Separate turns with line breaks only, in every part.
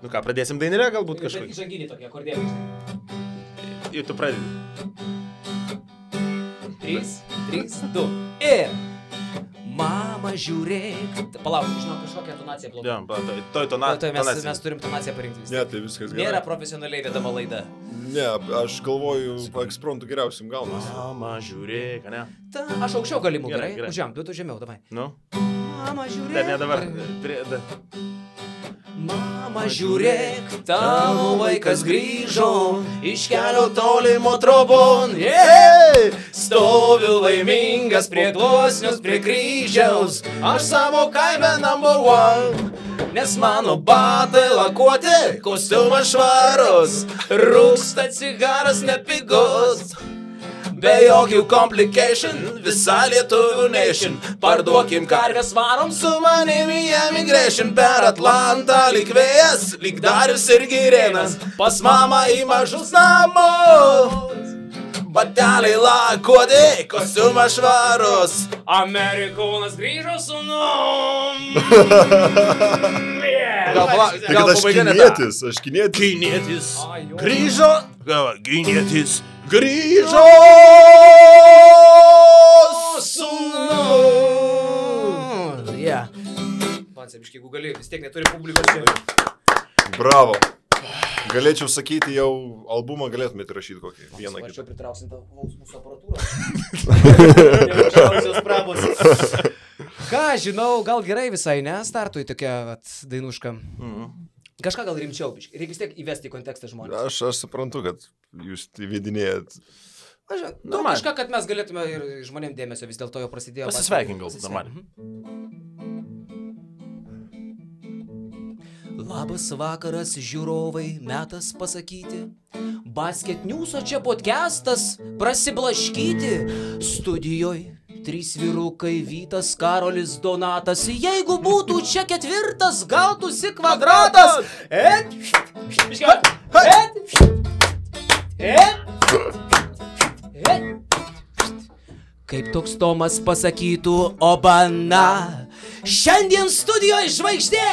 Nu ką, pradėsim dainelę galbūt kažkokį?
Žanginį tokį akordėlį.
Ir tu pradedi.
3, 2 ir... Mama, žiūrėk. Palauk, žinau, kažkokią tonaciją blogai.
Ja, toj tonaciją.
Mes turim tonaciją parinkti vis.
Ne, tai viskas gerai.
Nėra profesionaliai vedama laida.
Ne, aš galvoju, ekspromptu geriausiam gaunasi.
Mama, žiūrėk, ne?
Aš aukščiau galimų, gerai?
Gerai.
Užžiam, tu žemiau, davai.
Nu?
Mama, žiūrėk.
Ne dabar.
Mama, žiūrėk, tavo vaikas grįžo iš kelio tolimo trobon. Stoviu laimingas prie gluosnius, prie kryžiaus, aš savo kaime number one. Nes mano batai lakuoti, kostiumas švarus, rūksta cigaras nepigus. Be jokių complication, visa lietuvių nation. Parduokim karves, varom su manimi emigration. Per Atlantą lyg vėjas, lyg Darius ir Girėnas. Pas mamą į mažus namus. Bateliai lakuoti, kostiumas švarus. Amerikonas grįžo sūnum.
Tai kad aš kinietis,
Kinietis grįžo. Kinietis grįžo sūnum.
Yeah. Man sebiškai, jeigu gali, vis tiek neturi publikos čia.
Bravo. Galėčiau sakyti, jau albumą galėtumėte rašyti kokį vieną kitą.
Aš čia pritrauksim tą mūsų aparatūrą. Ką, žinau, gal gerai visai, ne? Startui tokia dainuška. Kažką gal rimčiau, reikia vis tiek įvesti į kontekstą žmonės.
Aš suprantu, kad jūs įvedinėjat.
Kažką, kad mes galėtume ir žmonėm dėmesio, vis dėlto jau prasidėjo.
Pasisveikink gal, normaliai.
Labas vakaras, žiūrovai, metas pasakyti. Basket News'o čia podcastas, prasiblaškyti. Studijoj 3 vyrukai, Vytas, Karolis, Donatas. Jeigu būtų čia 4, gautųsi kvadratas. Kaip toks Tomas pasakytų, obana. Šiandien studijoje žvaigždė.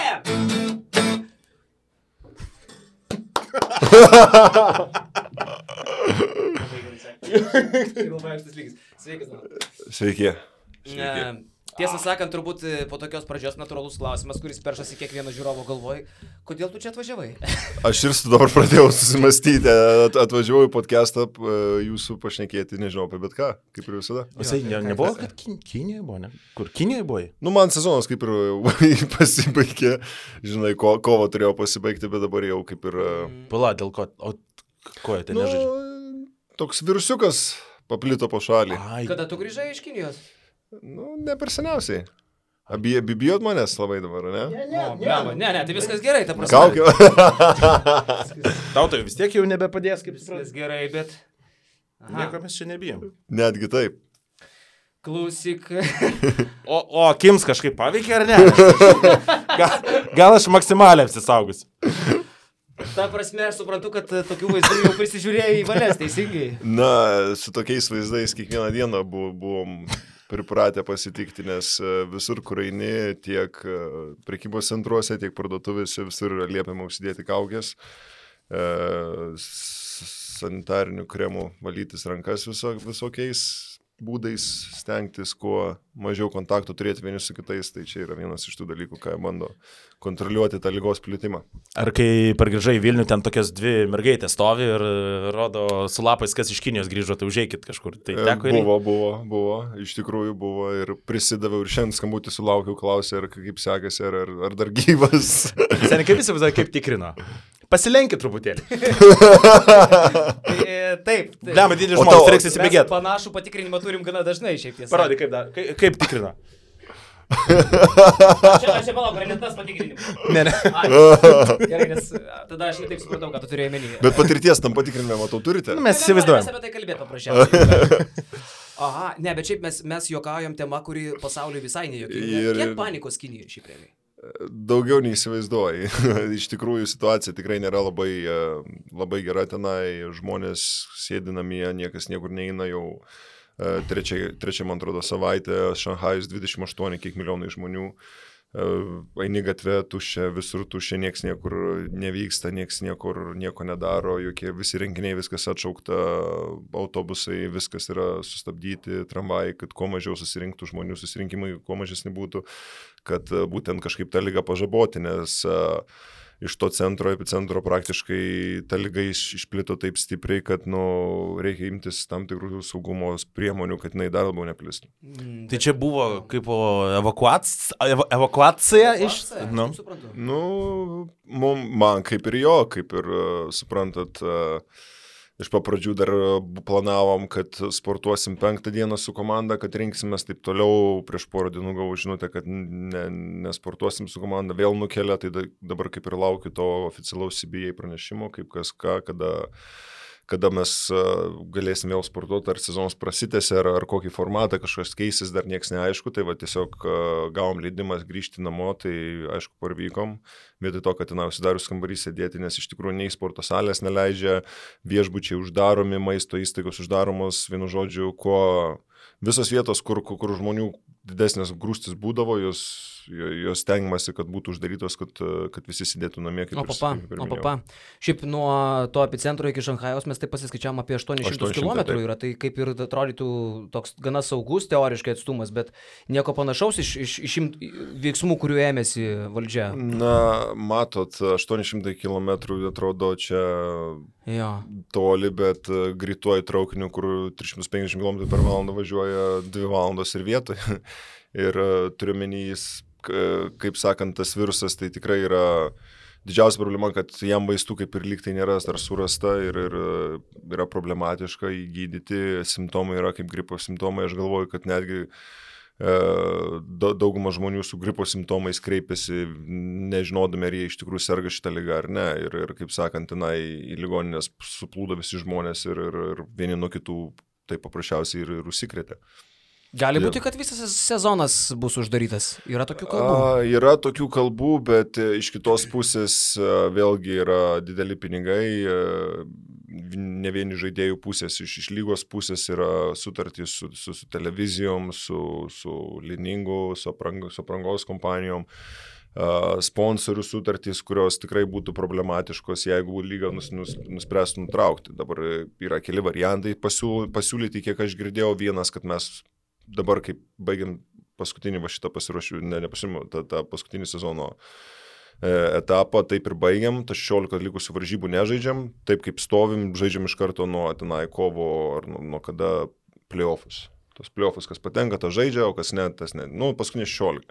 Sveiki.
Tiesą sakant, turbūt po tokios pradžios natūralus klausimas, kuris peršasi kiekvieno žiūrovo galvoj, kodėl tu čia atvažiavai?
Aš ir dabar pradėjau susimastyti, atvažiavau į podcastą jūsų pašnekėti, nežinau apie bet ką, kaip ir visada.
O jisai nebuvo, kad Kinijoje buvo, ne? Kur Kinijoje buvo?
Nu, man sezonas kaip ir pasibaigė, žinai, kovo turėjau pasibaigti, bet dabar jau kaip ir...
Pala, dėl ko? O ko jie ten nežaidžia?
Toks virusiukas paplito po šalį.
Kada tu grįžai iš Kinijos?
Nu, ne per seniausiai. Bijot manęs labai dabar, ne?
Ne, tai viskas gerai, ta prasme.
Kaukė.
Tau tai vis tiek jau nebepadės, kaip
viskas gerai, bet...
Nieko mes čia nebijom.
Netgi taip.
Klausyk.
O akims kažkaip paveikė ar ne? Gal aš maksimaliai apsisaugus.
Ta prasme, aš suprantu, kad tokių vaizdų jau prisižiūrėjai į valės, teisingai.
Na, su tokiais vaizdais kiekvieną dieną buvom pripratę pasitikti, nes visur, kur eini, tiek prekybos centruose, tiek parduotuvėse, visur yra liepiama užsidėti kaukės, sanitarinių kremų valytis rankas visokiais būdais, stengtis kuo mažiau kontaktų turėti vieni su kitais, tai čia yra vienas iš tų dalykų, ką bando kontroliuoti tą ligos plitimą.
Ar kai pargrįžai į Vilnių, ten tokias 2 mergaitės stovi ir rodo su lapais, kas iš Kinijos grįžo, tai užeikit kažkur. Tai teko ir...
Buvo, iš tikrųjų buvo ir prisidaviau ir šiandien skambutį sulaukiau, klausė, ar kaip sekasi, ar dar gyvas.
Seniai, kaip visi visai kaip tikrino? Pasilenkit truputėlį.
Taip.
Lemą didį žmonės, reiks įsibėgėti.
Panašų patikrinimą turim gana dažnai šiaip tiesa.
Parodai, kaip tikrina.
Aš čia palauk, ar ne tas patikrinimas?
Ne.
Gerai, nes tada aš netaip supratau, ką tu turėjai menį.
Bet patirties tam patikrinime, matau, turite?
Mes įsivaizduojam.
Mes apie tai kalbėt paprasčiausiai. Aha, ne, bet šiaip mes juokaujam tema, kuri pasauliui visai nejuokinga. Kiek panikos Kinijoje šiaip realiai?
Daugiau neįsivaizduoji. Iš tikrųjų situacija tikrai nėra labai gera tenai, žmonės sėdi namie, niekas niekur neina jau trečia, man atrodo, savaitė, Šanchajus 28 kiek milijonai žmonių, eini gatvė tuščia, visur tuščia, nieks niekur nevyksta, nieks nieko nedaro, visi renginiai, viskas atšaukta, autobusai, viskas yra sustabdyti, tramvajai, kad kuo mažiau susirinktų žmonių, susirinkimai kuo mažesni būtų, kad būtent kažkaip tą ligą pažaboti, nes iš to epicentro praktiškai ta liga išplito taip stipriai, kad reikia imtis tam tikrų saugumo priemonių, kad jinai dar labiau neplistų.
Tai čia buvo kaip evakuacija iš...
Man kaip ir jo, kaip ir suprantat, iš papradžių dar planavom, kad sportuosim 5 dieną su komanda, kad rinksimės taip toliau, prieš porą dienų gavau žinutę, kad nesportuosim su komanda, vėl nukelia, tai dabar kaip ir laukiu to oficialaus CBA pranešimo, kaip kas ką, kada mes galėsim vėl sportuoti, ar sezonas prasitęsia, ar kokį formatą kažkas keisis, dar nieks neaišku, tai va tiesiog gavom leidimas grįžti namo, tai aišku parvykom, vietoj to, kad ten užsidarius kambarį sėdėti, nes iš tikrųjų nei sporto salės neleidžia, viešbučiai uždaromi, maisto įstaigos uždaromos, vienu žodžiu, visos vietos, kur žmonių didesnės grūstis būdavo, jos stengiamasi, kad būtų uždarytos, kad visi sėdėtų namie.
Šiaip nuo to epicentro iki Šanchajaus mes taip pasiskaičiavom apie 800 km yra, tai kaip ir atrodytų toks gana saugus teoriškai atstumas, bet nieko panašaus iš veiksmų, kurių ėmėsi valdžia.
Na, matot, 800 km atrodo čia toli, bet greituoju traukiniu, kur 350 km per valandą važiuoja 2 valandos ir vietoje. Ir turiuomenys, kaip sakant, tas virusas tai tikrai yra didžiausia problema, kad jam vaistų kaip ir lyg tai nėra dar surasta ir yra problematiška įgydyti. Simptomai yra kaip gripo simptomai. Aš galvoju, kad netgi dauguma žmonių su gripo simptomais kreipiasi, nežinodami, ar jie iš tikrųjų serga šitą ligą ar ne. Ir kaip sakant, tenai į ligoninės suplūdo visi žmonės ir vieni nuo kitų tai paprasčiausiai ir užsikrėtė.
Gali būti, kad visas sezonas bus uždarytas. Yra tokių kalbų?
Yra tokių kalbų, bet iš kitos pusės vėlgi yra dideli pinigai. Ne vieni žaidėjų pusės, iš lygos pusės yra sutartys su televizijom, su Liningu, su aprangos kompanijom. Sponsorių sutartys, kurios tikrai būtų problematiškos, jeigu lyga nuspręstų nutraukti. Dabar yra keli variantai pasiūlyti, kiek aš girdėjau. Vienas, kad mes dabar, kaip baigiam paskutinį šitą tą paskutinį sezono etapą, taip ir baigiam, tas 16 likusių varžybų nežaidžiam, taip kaip stovim, žaidžiam iš karto nuo tenai kovo ar nuo kada playoffus. Tos playoffus, kas patenka, tas žaidžia, o kas ne, tas ne. Paskutinį 16.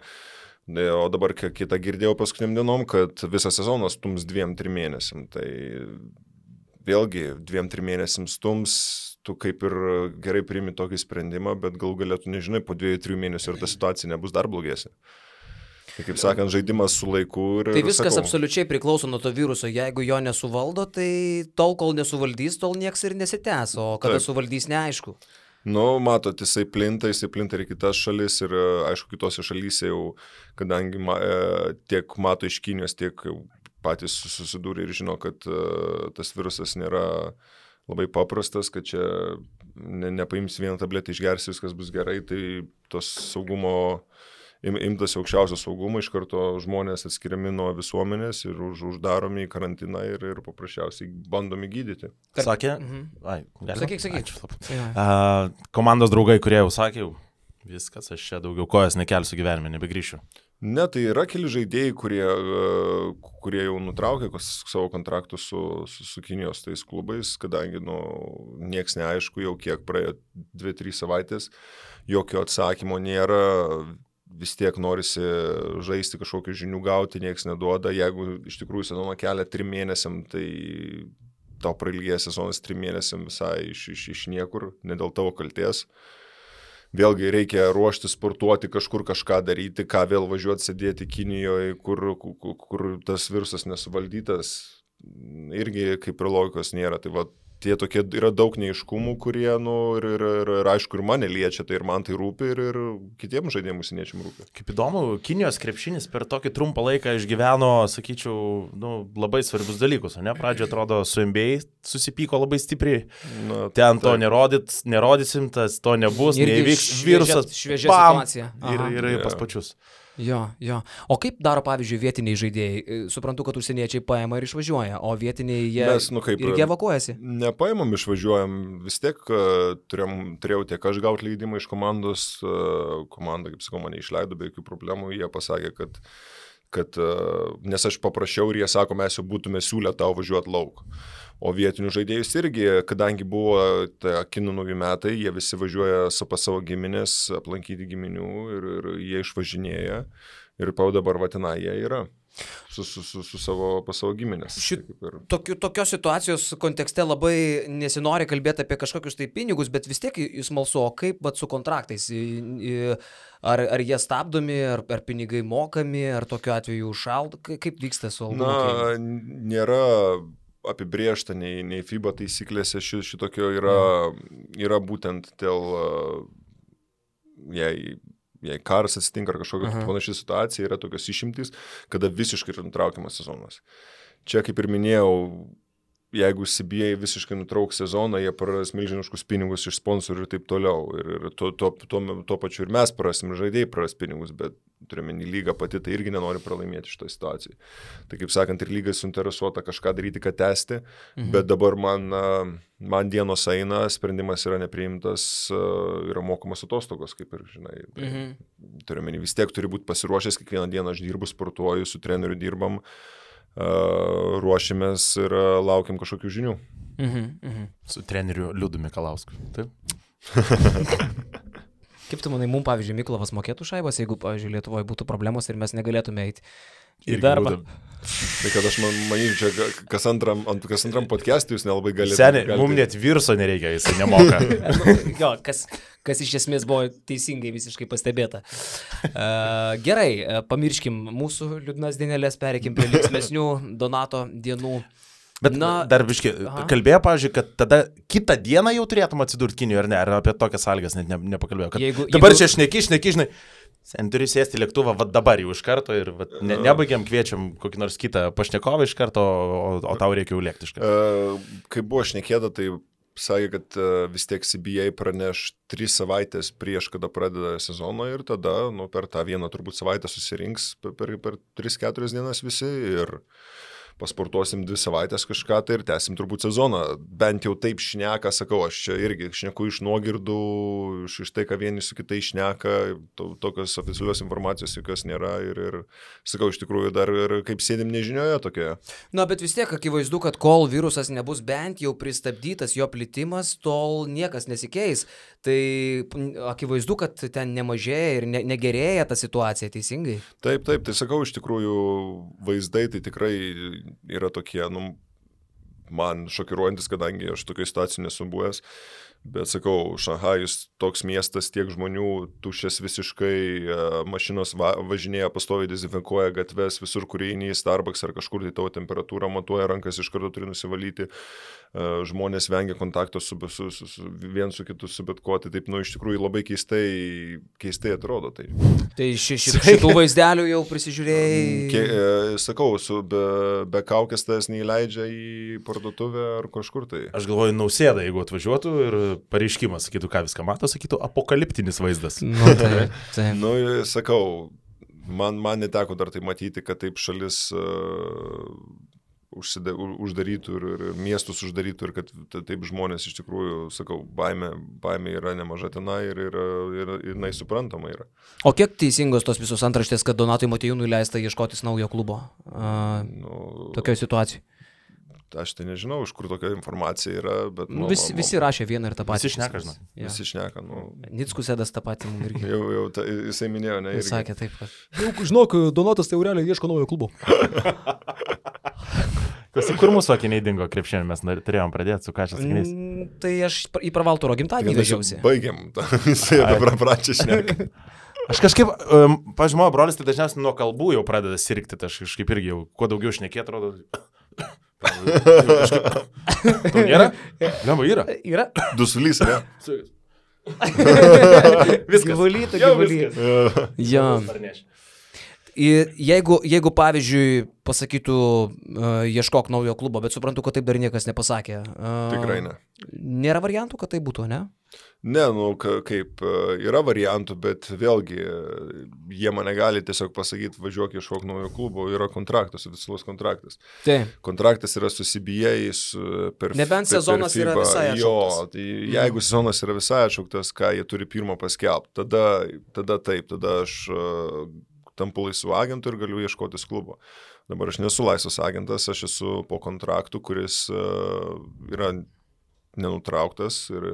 O dabar kitą girdėjau paskutiniam dienom, kad visą sezoną stums 2-3 mėnesiam. Tai vėlgi 2-3 mėnesiam stums, tu kaip ir gerai priimi tokį sprendimą, bet gal galėtų nežinai, po 2-3 mėnesių ir ta situacija nebus dar blogesnė. Tai kaip sakant, žaidimas su laiku ir...
Tai viskas absoliučiai priklauso nuo to viruso. Jeigu jo nesuvaldo, tai tol, kol nesuvaldys, tol nieks ir nesitęs, o kada suvaldys, neaišku.
Matot, jisai plinta ir kitas šalis ir aišku, kitose šalyse jau, kadangi tiek mato iš Kinijos, tiek patys susidūrė ir žino, kad tas virusas nėra labai paprastas, kad čia nepaims vieną tabletę, išgersi, viskas bus gerai, tai tos saugumo, imtasi aukščiausio saugumo, iš karto žmonės atskiriami nuo visuomenės ir uždaromi į karantiną ir paprasčiausiai bandomi gydyti.
Sakė?
Sakyk.
Komandos
draugai, kurie jau sakė, viskas, aš čia daugiau kojas nekelsiu gyvenime, nebegrįšiu.
Ne, tai yra keli žaidėjai, kurie jau nutraukė savo kontraktus su Kinijos tais klubais, kadangi nieks neaišku, jau kiek praėjo 2-3 savaitės, jokio atsakymo nėra, vis tiek norisi žaisti, kažkokių žinių gauti, nieks neduoda. Jeigu iš tikrųjų sezoną kelia 3 mėnesiam, tai tau prailgės sezonas 3 mėnesiam visai iš niekur, ne dėl tavo kalties. Vėlgi reikia ruošti, sportuoti, kažkur kažką daryti, ką vėl važiuoti sėdėti Kinijoje, kur tas virusas nesuvaldytas, irgi kaip ir logikos nėra. Tai va, tie tokie yra daug neaiškumų, kurie, ir aišku, ir mane liečia, tai ir man tai rūpi, ir kitiems žaidėjams užsieniečiam rūpi.
Kaip įdomu, Kinijos krepšinis per tokį trumpą laiką išgyveno, sakyčiau, labai svarbius dalykus, ne? Pradžioje atrodo su NBA susipyko labai stipriai, ten to nerodysim, to nebus, neįvyks virusas,
šviežia situacija.
Ir pas pačius.
Jo. O kaip daro, pavyzdžiui, vietiniai žaidėjai? Suprantu, kad užsieniečiai paima ir išvažiuoja, o vietiniai jie irgi evakuojasi.
Nepaimam, išvažiuojam. Vis tiek turėjau tiek aš gauti leidimą iš komandos. Komanda, kaip sakau, mane išleido be jokių problemų. Jie pasakė, kad nes aš paprašiau ir jie sako, mes jau būtume siūlę tau važiuoti lauk. O vietinių žaidėjus irgi, kadangi buvo kinų naujų metai, jie visi važiuoja pas savo giminės, aplankyti giminių ir jie išvažinėja. Ir dabar vatina jie yra pas savo giminės.
Tokios situacijos kontekste labai nesinori kalbėti apie kažkokius tai pinigus, bet vis tiek jūs smalsu, o kaip su kontraktais? Ar jie stabdomi, ar pinigai mokami, ar tokiu atveju užšaldo? Kaip vyksta su algų mokėjimu?
Nėra apibrėžta nei FIBA taisyklėse šitokio yra būtent dėl, jei karas atsitinka ar kažkokia panaši situacija, yra tokios išimtys, kada visiškai yra nutraukiamas sezonas. Čia, kaip ir minėjau, jeigu CBA visiškai nutrauks sezoną, jie praras milžiniškus pinigus iš sponsorių ir taip toliau. Ir tuo pačiu ir mes prarasim, žaidėjai praras pinigus, bet turime lyga pati, tai irgi nenori pralaimėti šitoje situacijoje. Tai kaip sakant, ir lyga suinteresuota kažką daryti, kad tęsti, bet dabar man dienos eina, sprendimas yra nepriimtas, yra mokamas atostogos, kaip ir žinai. Turime vis tiek turi būti pasiruošęs, kiekvieną dieną aš dirbu, sportuoju, su treneriu dirbam, ruošimės ir laukiam kažkokių žinių.
Su treneriu Liudu Mikalausku. Taip?
Kaip tu manai, mums, pavyzdžiui, Miklovas mokėtų šaibas, jeigu, pavyzdžiui, Lietuvoje būtų problemos ir mes negalėtume eiti į darbą?
Tai kad aš manyčiau, čia kas antram podcast'ui jūs nelabai galite.
Seniai, mums net virso nereikia, jisai nemoka.
Jo, kas iš esmės buvo teisingai visiškai pastebėta. Gerai, pamirškim mūsų liūdnas dienelės, pereikim prie linksmesnių Donato dienų.
Bet dar biškai, kalbėjo, pavyzdžiui, kad tada kitą dieną jau turėtum atsidurti Kinijoje, ar ne? Ar apie tokias sąlygas net nepakalbėjau. Dabar čia šneki, žinai. Sen turi sėsti lėktuvą, dabar jau iš karto ir nebaigiam, kviečiam kokį nors kitą pašnekovą iš karto, o tau reikia jau lėkti iš karto.
Kai buvo šnekėta, tai sakė, kad vis tiek CBA praneš 3 savaitės prieš, kada pradeda sezoną ir tada per tą vieną turbūt savaitę susirinks per 3-4 dienas visi ir pasportuosim 2 savaitės kažką tai ir tęsim turbūt sezoną. Bent jau taip šneka, sakau, aš čia irgi šneku iš nuogirdų, iš tai, ką vieni su kitai šneka, tokios oficialios informacijos jokios nėra ir sakau, iš tikrųjų dar ir kaip sėdim nežinioje tokioje.
Na, bet vis tiek akivaizdu, kad kol virusas nebus bent jau pristabdytas jo plitimas, tol niekas nesikeis. Tai akivaizdu, kad ten nemažėja ir negerėja ta situacija, teisingai?
Taip, tai sakau, iš tikrųjų vaizdai tai tikrai yra tokie, man šokiruojantis, kadangi aš tokioje situacijoje nesu buvęs, bet sakau, Šanchajus toks miestas, tiek žmonių, tuščias visiškai, mašinos važinėja, pastoviai dezinfekuoja gatves, visur, kur eini į Starbucks ar kažkur, tai tavo temperatūrą matuoja, rankas iš karto turi nusivalyti, žmonės vengia kontakto vien su kitu, su bet ko, tai taip, iš tikrųjų labai keistai atrodo.
Tai šitų vaizdelių jau prisižiūrėjai?
Sakau, be kaukės tas neįleidžia į parduotuvę ar kažkur tai.
Aš galvoju, Nausėda, jeigu atvažiuotų ir pareiškimas, sakytų, ką viską mato, sakytų, apokaliptinis vaizdas.
Sakau, man neteko dar tai matyti, kad taip šalis uždarytų ir miestus uždarytų ir kad taip žmonės iš tikrųjų, sakau, baimė yra nemaža tenai ir jinai suprantama yra.
O kiek teisingos tos visos antraštės, kad Donatui Motiejūnui leista ieškotis naujo klubo tokioje situacijoje?
Aš tai nežinau, iš kur tokia informacija yra, bet...
Visi rašė vieną ir tą patį.
Visi šneka, žinau.
Visi šneka,
Nickus Edas tą patį mums irgi.
Jau jisai minėjo, ne?
Jis sakė taip, kad...
Žinok, Donatas tai realiai ieško naujo klubo.
Kur mūsų akiniai dingo krepšinį, mes turėjom pradėti su kažkas akiniais.
Tai aš į Pravalturo gimtadienį vežiausi.
Baigiam, jisai dabar pradžia šneka.
Aš kažkaip, pavyzdžiui, mano brolis tai dažniausiai nuo kalbų jau pradeda sirgti, tai aš kažkaip irgi jau kuo daugiau šnekėt, atrodo. Tau nėra? Lemba yra.
Yra.
Dusulys, ne?
Viskas.
Gyvulyta. Jo. Jeigu pavyzdžiui, pasakytų, ieškok naujo klubo, bet suprantu, kad taip dar niekas nepasakė.
Tikrai ne.
Nėra variantų, kad tai būtų, ne?
Ne, kaip yra variantų, bet vėlgi jie mane gali tiesiog pasakyti, važiuok ieškok naujo klubo, yra kontraktas, oficialus kontraktas.
Taip.
Kontraktas yra su CBA,
nebent sezonas yra visai atšauktas.
Jo, tai jeigu sezonas yra visai atšauktas, ką jie turi pirmo paskelbti, tada taip, tada aš tampu laisvu agentu ir galiu ieškotis klubo. Dabar aš nesu laisvas agentas, aš esu po kontraktu, kuris yra nenutrauktas ir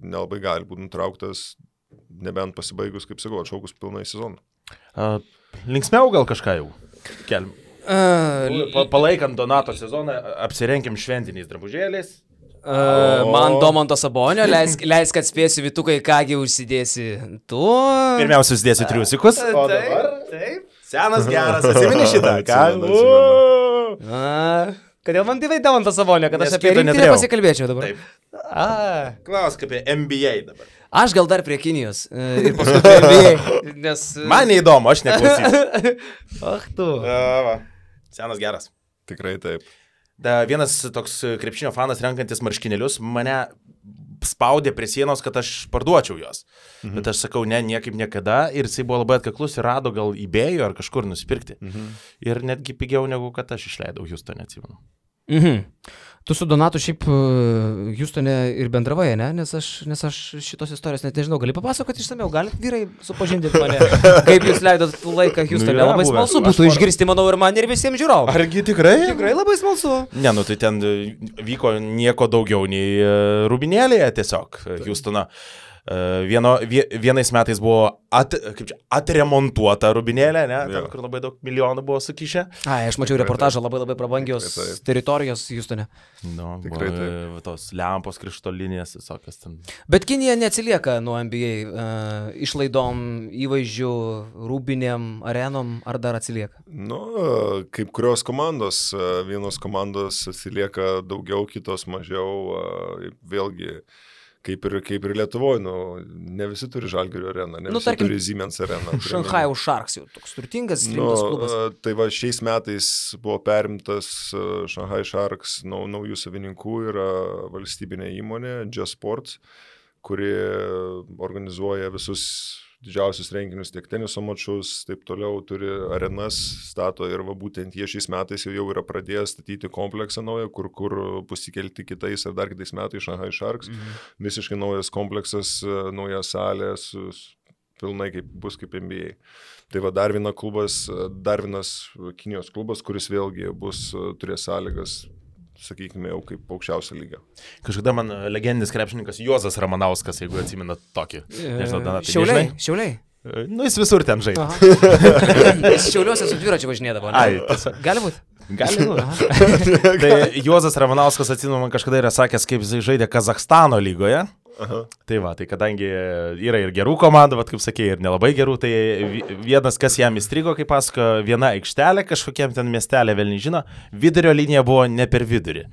nelabai gali būti nutrauktas, nebent pasibaigus, kaip sakau, atšaukus pilnai sezoną.
Linksmiau gal kažką jau kelm. Palaikant Donato sezoną, apsirenkim šventiniais drabužėliais.
Man Domanto Sabonio, leisk kad spėsiu Vitukai, kągi užsidėsi tu.
Pirmiausia, užsidėsiu triusikus. O dabar? Taip. Senas geras, atsimeni šitą.
Kodėl man tai Domanto Sabonio, kad aš apie rinktinę pasikalbėčiau dabar?
Taip. Klausk apie NBA dabar.
Aš gal dar prie Kinijos ir paskui prie NBA, nes...
Man neįdomu, aš neklausysiu.
Ach tu.
Senas geras.
Tikrai taip.
Vienas toks krepšinio fanas renkantis marškinėlius mane spaudė prie sienos, kad aš parduočiau jos. Bet aš sakau, ne, niekaip niekada. Ir jisai buvo labai atkaklus ir rado gal eBay'o ar kažkur nusipirkti. Ir netgi pigiau negu kad aš išleidau Houstone, atsimenu.
Tu su Donatu šiaip Houstone ir bendravai, ne? Nes aš šitos istorijos net nežinau. Gali papasakoti išsamiau? Galit vyrai supažindinti mane? Kaip jūs leidot laiką Houstone? Labai smalsu būtų išgirsti, manau, ir man, ir visiems žiūrovams.
Argi tikrai?
Tikrai labai smalsu.
Ne, tai ten vyko nieko daugiau nei rūbinėlėje tiesiog Houstone. Vienais metais buvo atremontuota rūbinėlė, ne? Ten, kur labai daug milijonų buvo sukišę.
Aš mačiau reportažą, labai prabangios teritorijos Houstone.
Tikrai taip. Tos lempos, krištolinės, visokios ten.
Bet Kinija neatsilieka nuo NBA išlaidom, įvaizdžių, rūbinėm, arenom, ar dar atsilieka?
Kaip kurios komandos, vienos komandos atsilieka daugiau, kitos mažiau, vėlgi. Kaip ir Lietuvoje, ne visi turi Žalgirio areną, ne visi turi Siemens areną.
Shanghai Sharks jau toks turtingas, rimtas klubas.
Tai va, šiais metais buvo perimtas Shanghai Sharks naujų savininkų, yra valstybinė įmonė, Just Sports, kuri organizuoja visus didžiausius renginius, tiek teniso mačus, taip toliau turi arenas, stato ir va būtent jie šiais metais jau yra pradėję statyti kompleksą naują, kur bus įkelti kitais ar dar kitais metais Shanghai Sharks. Visiškai naujas kompleksas, nauja salė, pilnai bus kaip NBA. Tai va dar vienas Kinijos klubas, kuris vėlgi turės sąlygas, sakykime, jau kaip aukščiausia lyga.
Kažkada man legendinis krepšininkas Juozas Ramanauskas, jeigu atsimenat tokį. Nežinau,
Šiauliai?
Jis visur ten žaidė.
Jis Šiauliuose su dviračiu važinėdavo. Gali būti?
Gali būti. Tai Juozas Ramanauskas, atsimenu, man kažkada yra sakęs, kaip jis žaidė Kazachstano lygoje. Tai va, tai kadangi yra ir gerų komandų, vat, kaip sakė, ir nelabai gerų, tai vienas, kas jam įstrigo, kaip pasako, viena aikštelė kažkokiam ten miestelė, vėl nežino, vidurio linija buvo ne per vidurį.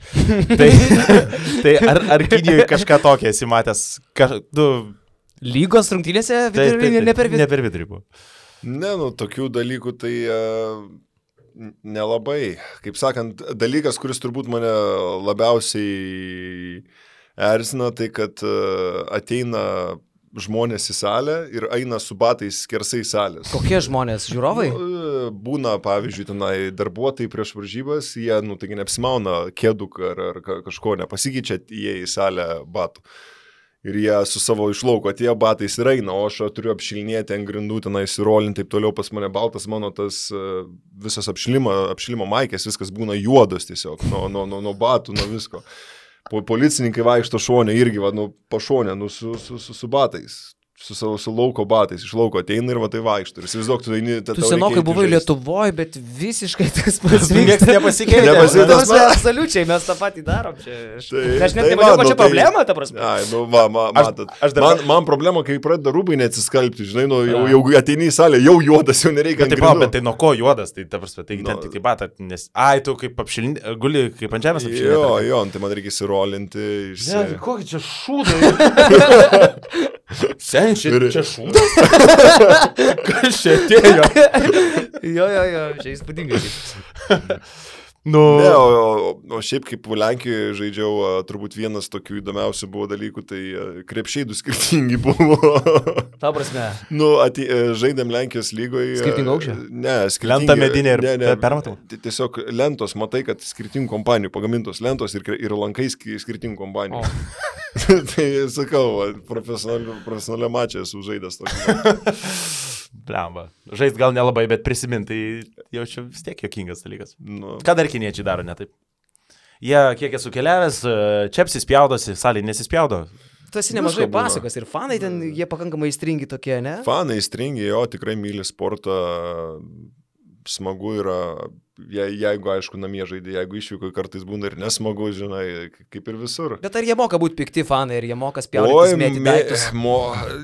Tai ar Kinijoje kažką tokia esi matęs?
Lygos rungtynėse vidurio linija ne per vidurį?
Ne per vidurį buvo.
Ne, tokių dalykų tai nelabai. Kaip sakant, dalykas, kuris turbūt mane labiausiai erzina, tai kad ateina žmonės į salę ir eina su batais skersai salės.
Kokie žmonės? Žiūrovai?
Būna, pavyzdžiui, tenai darbuotojai prieš varžybas, jie, taigi neapsimauna kėduk ar kažko, nepasikeičia jie į salę batų. Ir jie su savo išlauko atėjo batais ir eina, o aš turiu apšilinėti ant grindų, tenai įsirolinti, taip toliau pas mane baltas, mano tas visas apšilimo maikės, viskas būna juodas tiesiog, nuo batų, nuo visko. Policininkai vaikšto šonę irgi, pašonę, su batais, su lauko batais, iš lauko ateina ir tai vaikšto. Ir įsivaizduok, tu eini...
Tu senokai buvai Lietuvoje, bet visiškai tas pats
niekas nepasikeitė.
Absoliučiai, mes tą patį darom čia. Aš net nematau, kad čia problema, ta prasme.
Matot, man problema, kai pradeda rūbai neatsiskalbti, žinai, jau ateini į salę, jau juodas, jau nereikia.
Bet tai nuo ko juodas, tai ta prasme, tai ten tik tai batą, nes, tu kaip apšilinti, guli kaip ant žemės apšilinti.
Jo, tai man reikia įsirolinti.
Kokį čia šūdą. Sen, čia šūdas? Kas čia atėjo?
Jo, čia įspūdingai.
Ne, o šiaip kaip Lenkijoje žaidžiau, turbūt vienas tokių įdomiausių buvo dalykų, tai krepšiai du skirtingi buvo.
Ta prasme.
Žaidėm Lenkijos lygoje.
Skirtingo aukščio?
Ne, skirtingi.
Lenta medinė ir permatau.
Tiesiog lentos, matai, kad skirtingų kompanijų pagamintos lentos ir lankai skirtingų kompanijų. Tai sakau, profesionalią mačą esu žaidęs tokį.
Blemba. Žaist gal nelabai, bet prisiminti, tai jau čia vis tiek jokingas dalykas. Ką dar kiniečiai daro ne taip? Jie, kiek esu keliavęs, čepsis spjaudosi, salį nesispjaudo.
Tu esi nemažai pasakos ir fanai ten, jie pakankamai įstringi tokie, ne?
Fanai įstringi, jo, tikrai myli sportą, smagu yra, jeigu, aišku, namie žaidė, jeigu išvyko, kartais būna ir nesmagu, žinai, kaip ir visur.
Bet ar jie moka būti pikti fanai, ar jie moka spjaudytis, mėti daiktus?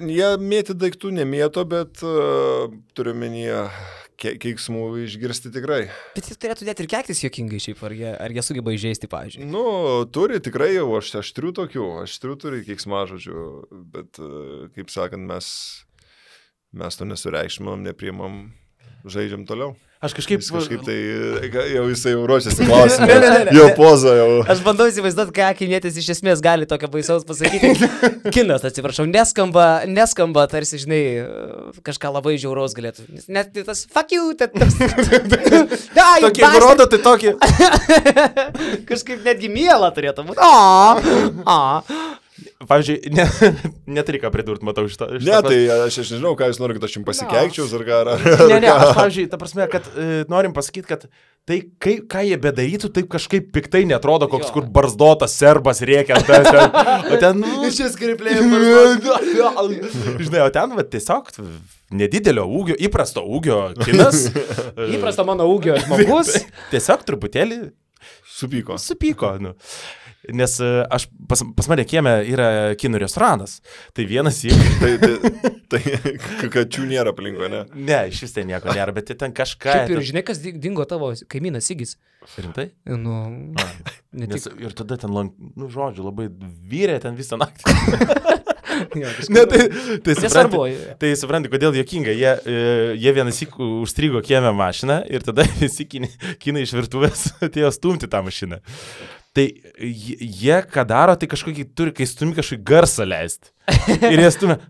Jie mėti daiktų nemėto, bet turiu menyje keiksmų išgirsti tikrai.
Bet jis turėtų net ir keiktis juokingai šiaip, ar jie sugeba įžeisti, pavyzdžiui?
Turi tikrai jau, aštrių turi keiksmažodžių, bet, kaip sakant, mes to nesureikšmam, nepriimam, žaidžiam toliau.
Aš kažkaip
tai jau jisai jau ruošiasi klausimą. Jau poza jau.
Aš bandau įsivaizduoti, ką kinietis iš esmės gali tokio baisaus pasakyti. Kinas, atsiprašau, neskamba, tarsi, žinai, kažką labai žiauraus galėtų. Net tas fuck you,
tokį rodo, tai tokį.
Kažkaip netgi mielą turėtų būti.
Pavyzdžiui, neturi ką pridurti, matau šitą.
Ne, tai aš nežinau, ką jūs norite, kad aš jums pasikeikčiau, ar ką.
Ne, aš, pavyzdžiui, ta prasme, kad norim pasakyti, kad tai, ką jie bedarytų, taip kažkaip piktai netrodo, koks kur barzdotas serbas rėkia. O ten,
šis skriplėjai barzdotas.
Žinai, o ten, tiesiog nedidelio ūgio, įprasto ūgio kinas.
Įprasto mano ūgio žmogus.
Tiesiog truputėlį supyko. Nes pas mane kieme yra kinų restoranas. Tai vienas jį.
Tai kačių nėra aplinko, ne?
Ne, iš vis tai nieko nėra, bet ten kažką.
Šiaip ir žinai, kas dingo tavo kaimynas Sigis.
Rimtai?
Ir
tada ten, žodžiu, labai vyrė ten visą naktį. Ne, tai supranti, kodėl juokinga. Jie vienas užstrigo kieme mašiną ir tada visi kinai iš virtuvės atėjo stumti tą mašiną. Tai jie, ką daro, tai kažkokį turi, kai stumi kažkokį garsą leisti. Ir jie stumia.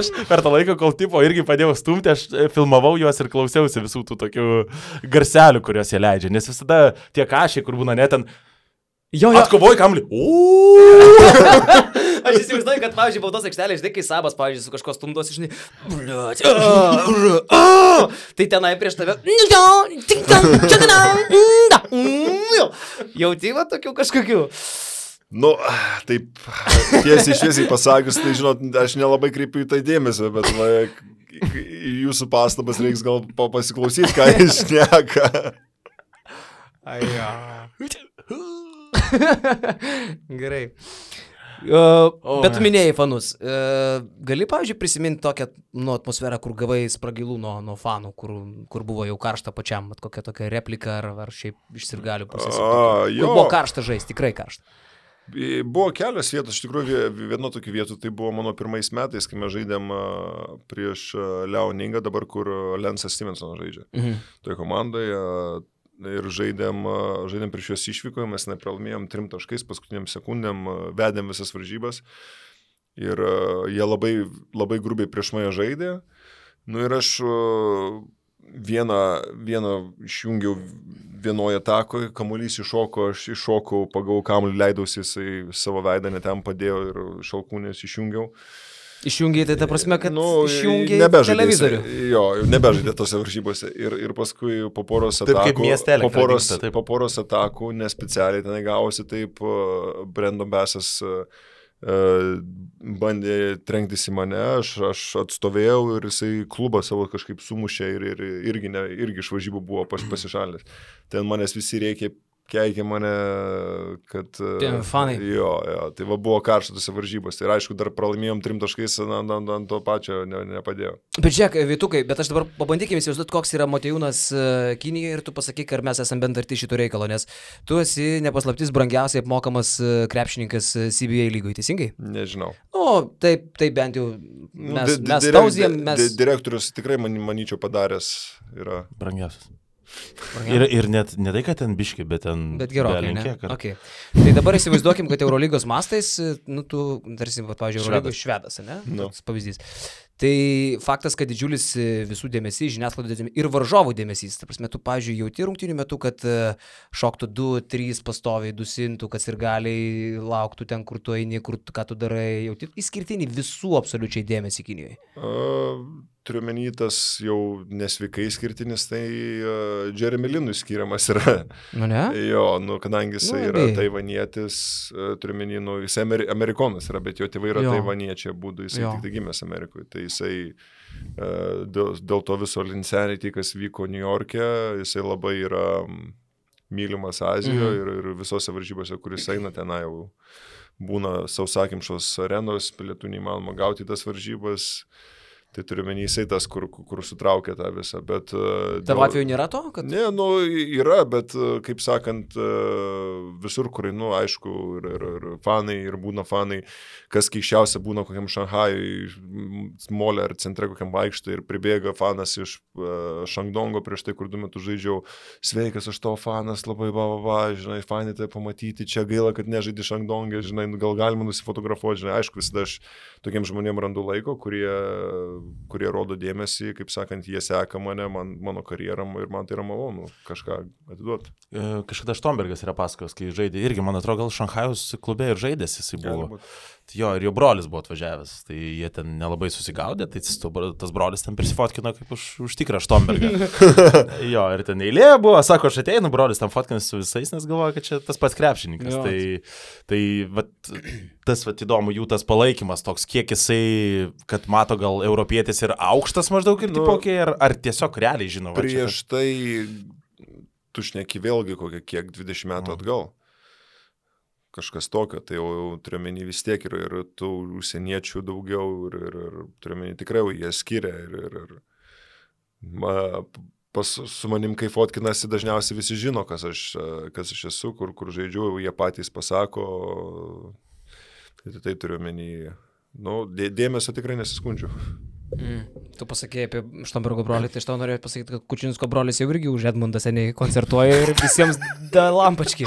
Aš per tą laiką, kol tipo irgi padėjau stumti, aš filmavau juos ir klausiausi visų tų tokių garselių, kuriuos jie leidžia. Nes visada tie kašiai, kur būna net ten atkovoji kamlį.
Aš įsivaizduoju, kad, pavyzdžiui, baudos aikštelė, žinai, kai Sabas, pavyzdžiui, su kažko stumdos, žinai, tai tenai prieš tave, jauti va tokių kažkokių.
Taip, tiesiai šviesiai pasakius, tai žinot, aš nelabai kreipiu į tai dėmesio, bet jūsų pastabas reiks gal pasiklausyti, ką jis šneka.
Gerai. Bet tu minėjai fanus. Gali, pavyzdžiui, prisiminti tokią atmosferą, kur gavai spragilų nuo fanų, kur buvo jau karšta pačiam, kokia tokia replika ar šiaip iš sirgalių pusės. Kur buvo karšta žaisti, tikrai karšta.
Buvo kelios vietos, iš tikrųjų viena tokių vietų, tai buvo mano pirmais metais, kai mes žaidėm prieš Liaoningą, dabar kur Lensas Stevensonas žaidžia. Toje komandoje. Ir žaidėm prieš juos išvykoje, mes nepralaimėjom 3 taškais, paskutiniam sekundėm vedėm visas varžybas ir jie labai, labai grubiai prieš mane žaidė. Ir aš vieną išjungiau vienoje atakoje, kamuolys iššoko, aš iššokau, pagavau kamuolį, leidausi, jisai savo veidą netem padėjo ir šalkūnės išjungiau.
Išjungiai, tai ta prasme, kad išjungiai televizorių.
Jo, nebežaidė tose varžybose. Ir paskui po poros atakų, nespecialiai tenai gavosi, taip Brandon Bassas bandė trenktis į mane, aš atstovėjau ir jisai klubą savo kažkaip sumušė ir irgi iš varžybų buvo pasišalinęs. Ten manęs visi reikia keikė mane, kad...
Fanai.
Jo, tai buvo karštose varžybos. Ir aišku, dar pralaimėjom 3 taškais, ant to pačio nepadėjo.
Bet žiūrėk, Vytukai, bet aš dabar pabandykime įsivaizduoti, koks yra Motiejūnas Kinijoje ir tu pasakyk, ar mes esame bent arti šito reikalo, nes tu esi nepaslaptis brangiausiai apmokamas krepšininkas CBA lygoje, teisingai?
Nežinau.
Taip bent jau mes tauzijam, mes...
Direktorius tikrai, manyčiau, padaręs yra.
Brangiausias. Ir net ne tai, kad ten biški, bet ten...
Bet gerokai, ne? Okay. Tai dabar įsivaizduokim, kad Eurolygos mastais, tu, tarsi, pavyzdžiui, Eurolygos švedas, ne? Toks pavyzdys. Tai faktas, kad didžiulis visų dėmesys, žiniasklaidos dėmesys ir varžovų dėmesys. Ta prasme, tu, pavyzdžiui, jauti rungtynių metu, kad šoktų 2-3 pastoviai, dusintų, kas ir gali lauktų ten, kur tu eini, ką tu darai. Jauti išskirtinį visų absoliučiai dėmesį Kinijoje.
Turiu menį tas jau nesveikai skirtinis, tai Jeremy Linui skiriamas yra.
Nu ne?
Jo, kadangi jisai yra taivanietis, turiu menį, jisai amerikonas yra, bet jo tėvai yra taivaniečiai, būdų jisai tik tai gimęs Amerikoje. Tai jisai dėl to viso Linsanity, kas vyko New York'e, jisai labai yra mylimas Azijoje ir visose varžybose, kuris eina tenai jau būna sausakimšos arenos, pilietų neįmanoma gauti tas varžybas. Tai turiu menį jisai tas, kur sutraukia tą visą, bet...
Tavo atveju nėra to? Kad...
Ne, yra, bet, kaip sakant, visur, kur, aišku, ir fanai, ir būna fanai, kas keiščiausia būna kokiam Šanhajui, molė ar centre kokiam vaikštai ir pribėga fanas iš Šangdongo prieš tai, kur 2 metus žaidžiau, sveikas, aš tavo fanas, labai žinai, fanai tai pamatyti, čia gaila, kad nežaidži Šangdongė, žinai, gal galima nusifotografuoti, žinai, aišku, visada aš tokiem žmonėm randu laiko, kurie rodo dėmesį, kaip sakant, jie seka mane, mano karjerą ir man tai yra malonu kažką atiduoti.
Kažkada Štombergas yra pasakos, kai žaidė, irgi, man atrodo, gal Šanchajaus klube ir žaidės jisai buvo. Jo, ir jo brolis buvo atvažiavęs, tai jie ten nelabai susigaudė, tai tas brolis ten prisifotkino kaip už tikrą Štombergą. Jo, ir ten eilė buvo, sako, aš ateinu, brolis ten fotkinas su visais, nes galvoja, kad čia tas pats krepšininkas. Tai tas įdomu, jų tas palaikymas toks, kiek jisai, kad mato gal europietis ir aukštas maždaug ir tipokiai, ar tiesiog realiai žinau.
Prieš tai tu šneki vėlgi kokią kiek 20 metų atgal. Kažkas tokio, tai jau turiuomenį vis tiek ir tų užsieniečių daugiau ir turiuomenį tikrai jie skiria su manim, kai fotkinasi, dažniausiai visi žino, kas aš esu, kur žaidžiu, jie patys pasako, tai turiuomenį, dėmesio tikrai nesiskundžiu.
Tu pasakėjai apie Štombergo brolį, tai aš tau norėjau pasakyti, kad Kučinsko brolis jau irgi už Edmundą seniai koncertuoja ir visiems da lampački.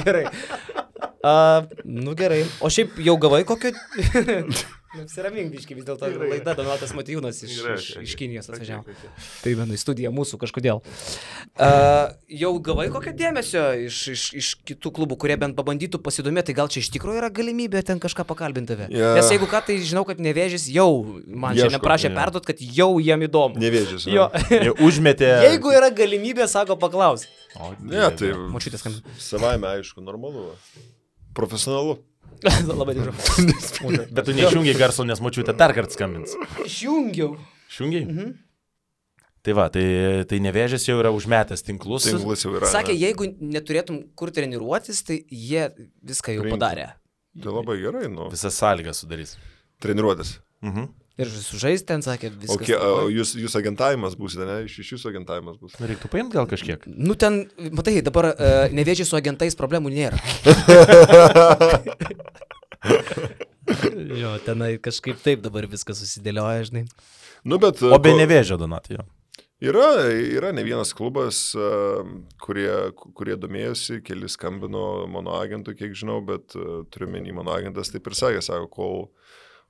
Gerai. Gerai. O šiaip jau gavai kokio... Apsiramink biškai, vis dėlto laida Donatas Motiejūnas iš Kinijos atvažiavo. Primenu į studiją mūsų kažkodėl. Jau gavai kokio dėmesio iš kitų klubų, kurie bent pabandytų pasidomėti, gal čia iš tikrųjų yra galimybė ten kažką pakalbinti tave? Nes jeigu ką, tai žinau, kad Nevėžis jau man čia neprašė perduot, kad jau jiem įdomu.
Nevėžis.
Jie užmetė.
Jeigu yra galimybė, sako, paklaus.
Ne, tai
Močiutės skambina.
Savaime, aišku, normalu. Profesionalu.
Labai tikrai.
Bet tu neišjungiai garso, nes močiutė dar kartą skambins.
Išjungiau.
Išjungiai? Tai va, tai Nevėžis jau yra užmetęs tinklus.
Tinklus jau yra.
Sakė, jeigu neturėtum kur treniruotis, tai jie viską jau padarė.
Tai labai gerai,
Visas sąlygas sudarys.
Treniruotis.
Ir sužais ten, sakė, viskas.
Okay, jūs agentavimas būsite, ne? Iš jūsų agentavimas bus.
Reiktų paimti gal kažkiek.
Ten, matai, dabar Nevėžį su agentais problemų nėra. Jo, tenai kažkaip taip dabar viskas susidėlioja, žinai.
Bet,
o be Nevėžio, Donatai, jo.
Yra ne vienas klubas, kurie domėjosi, keli skambino mano agentui, kiek žinau, bet turiu menį mano agentas taip ir sakė, sako, kol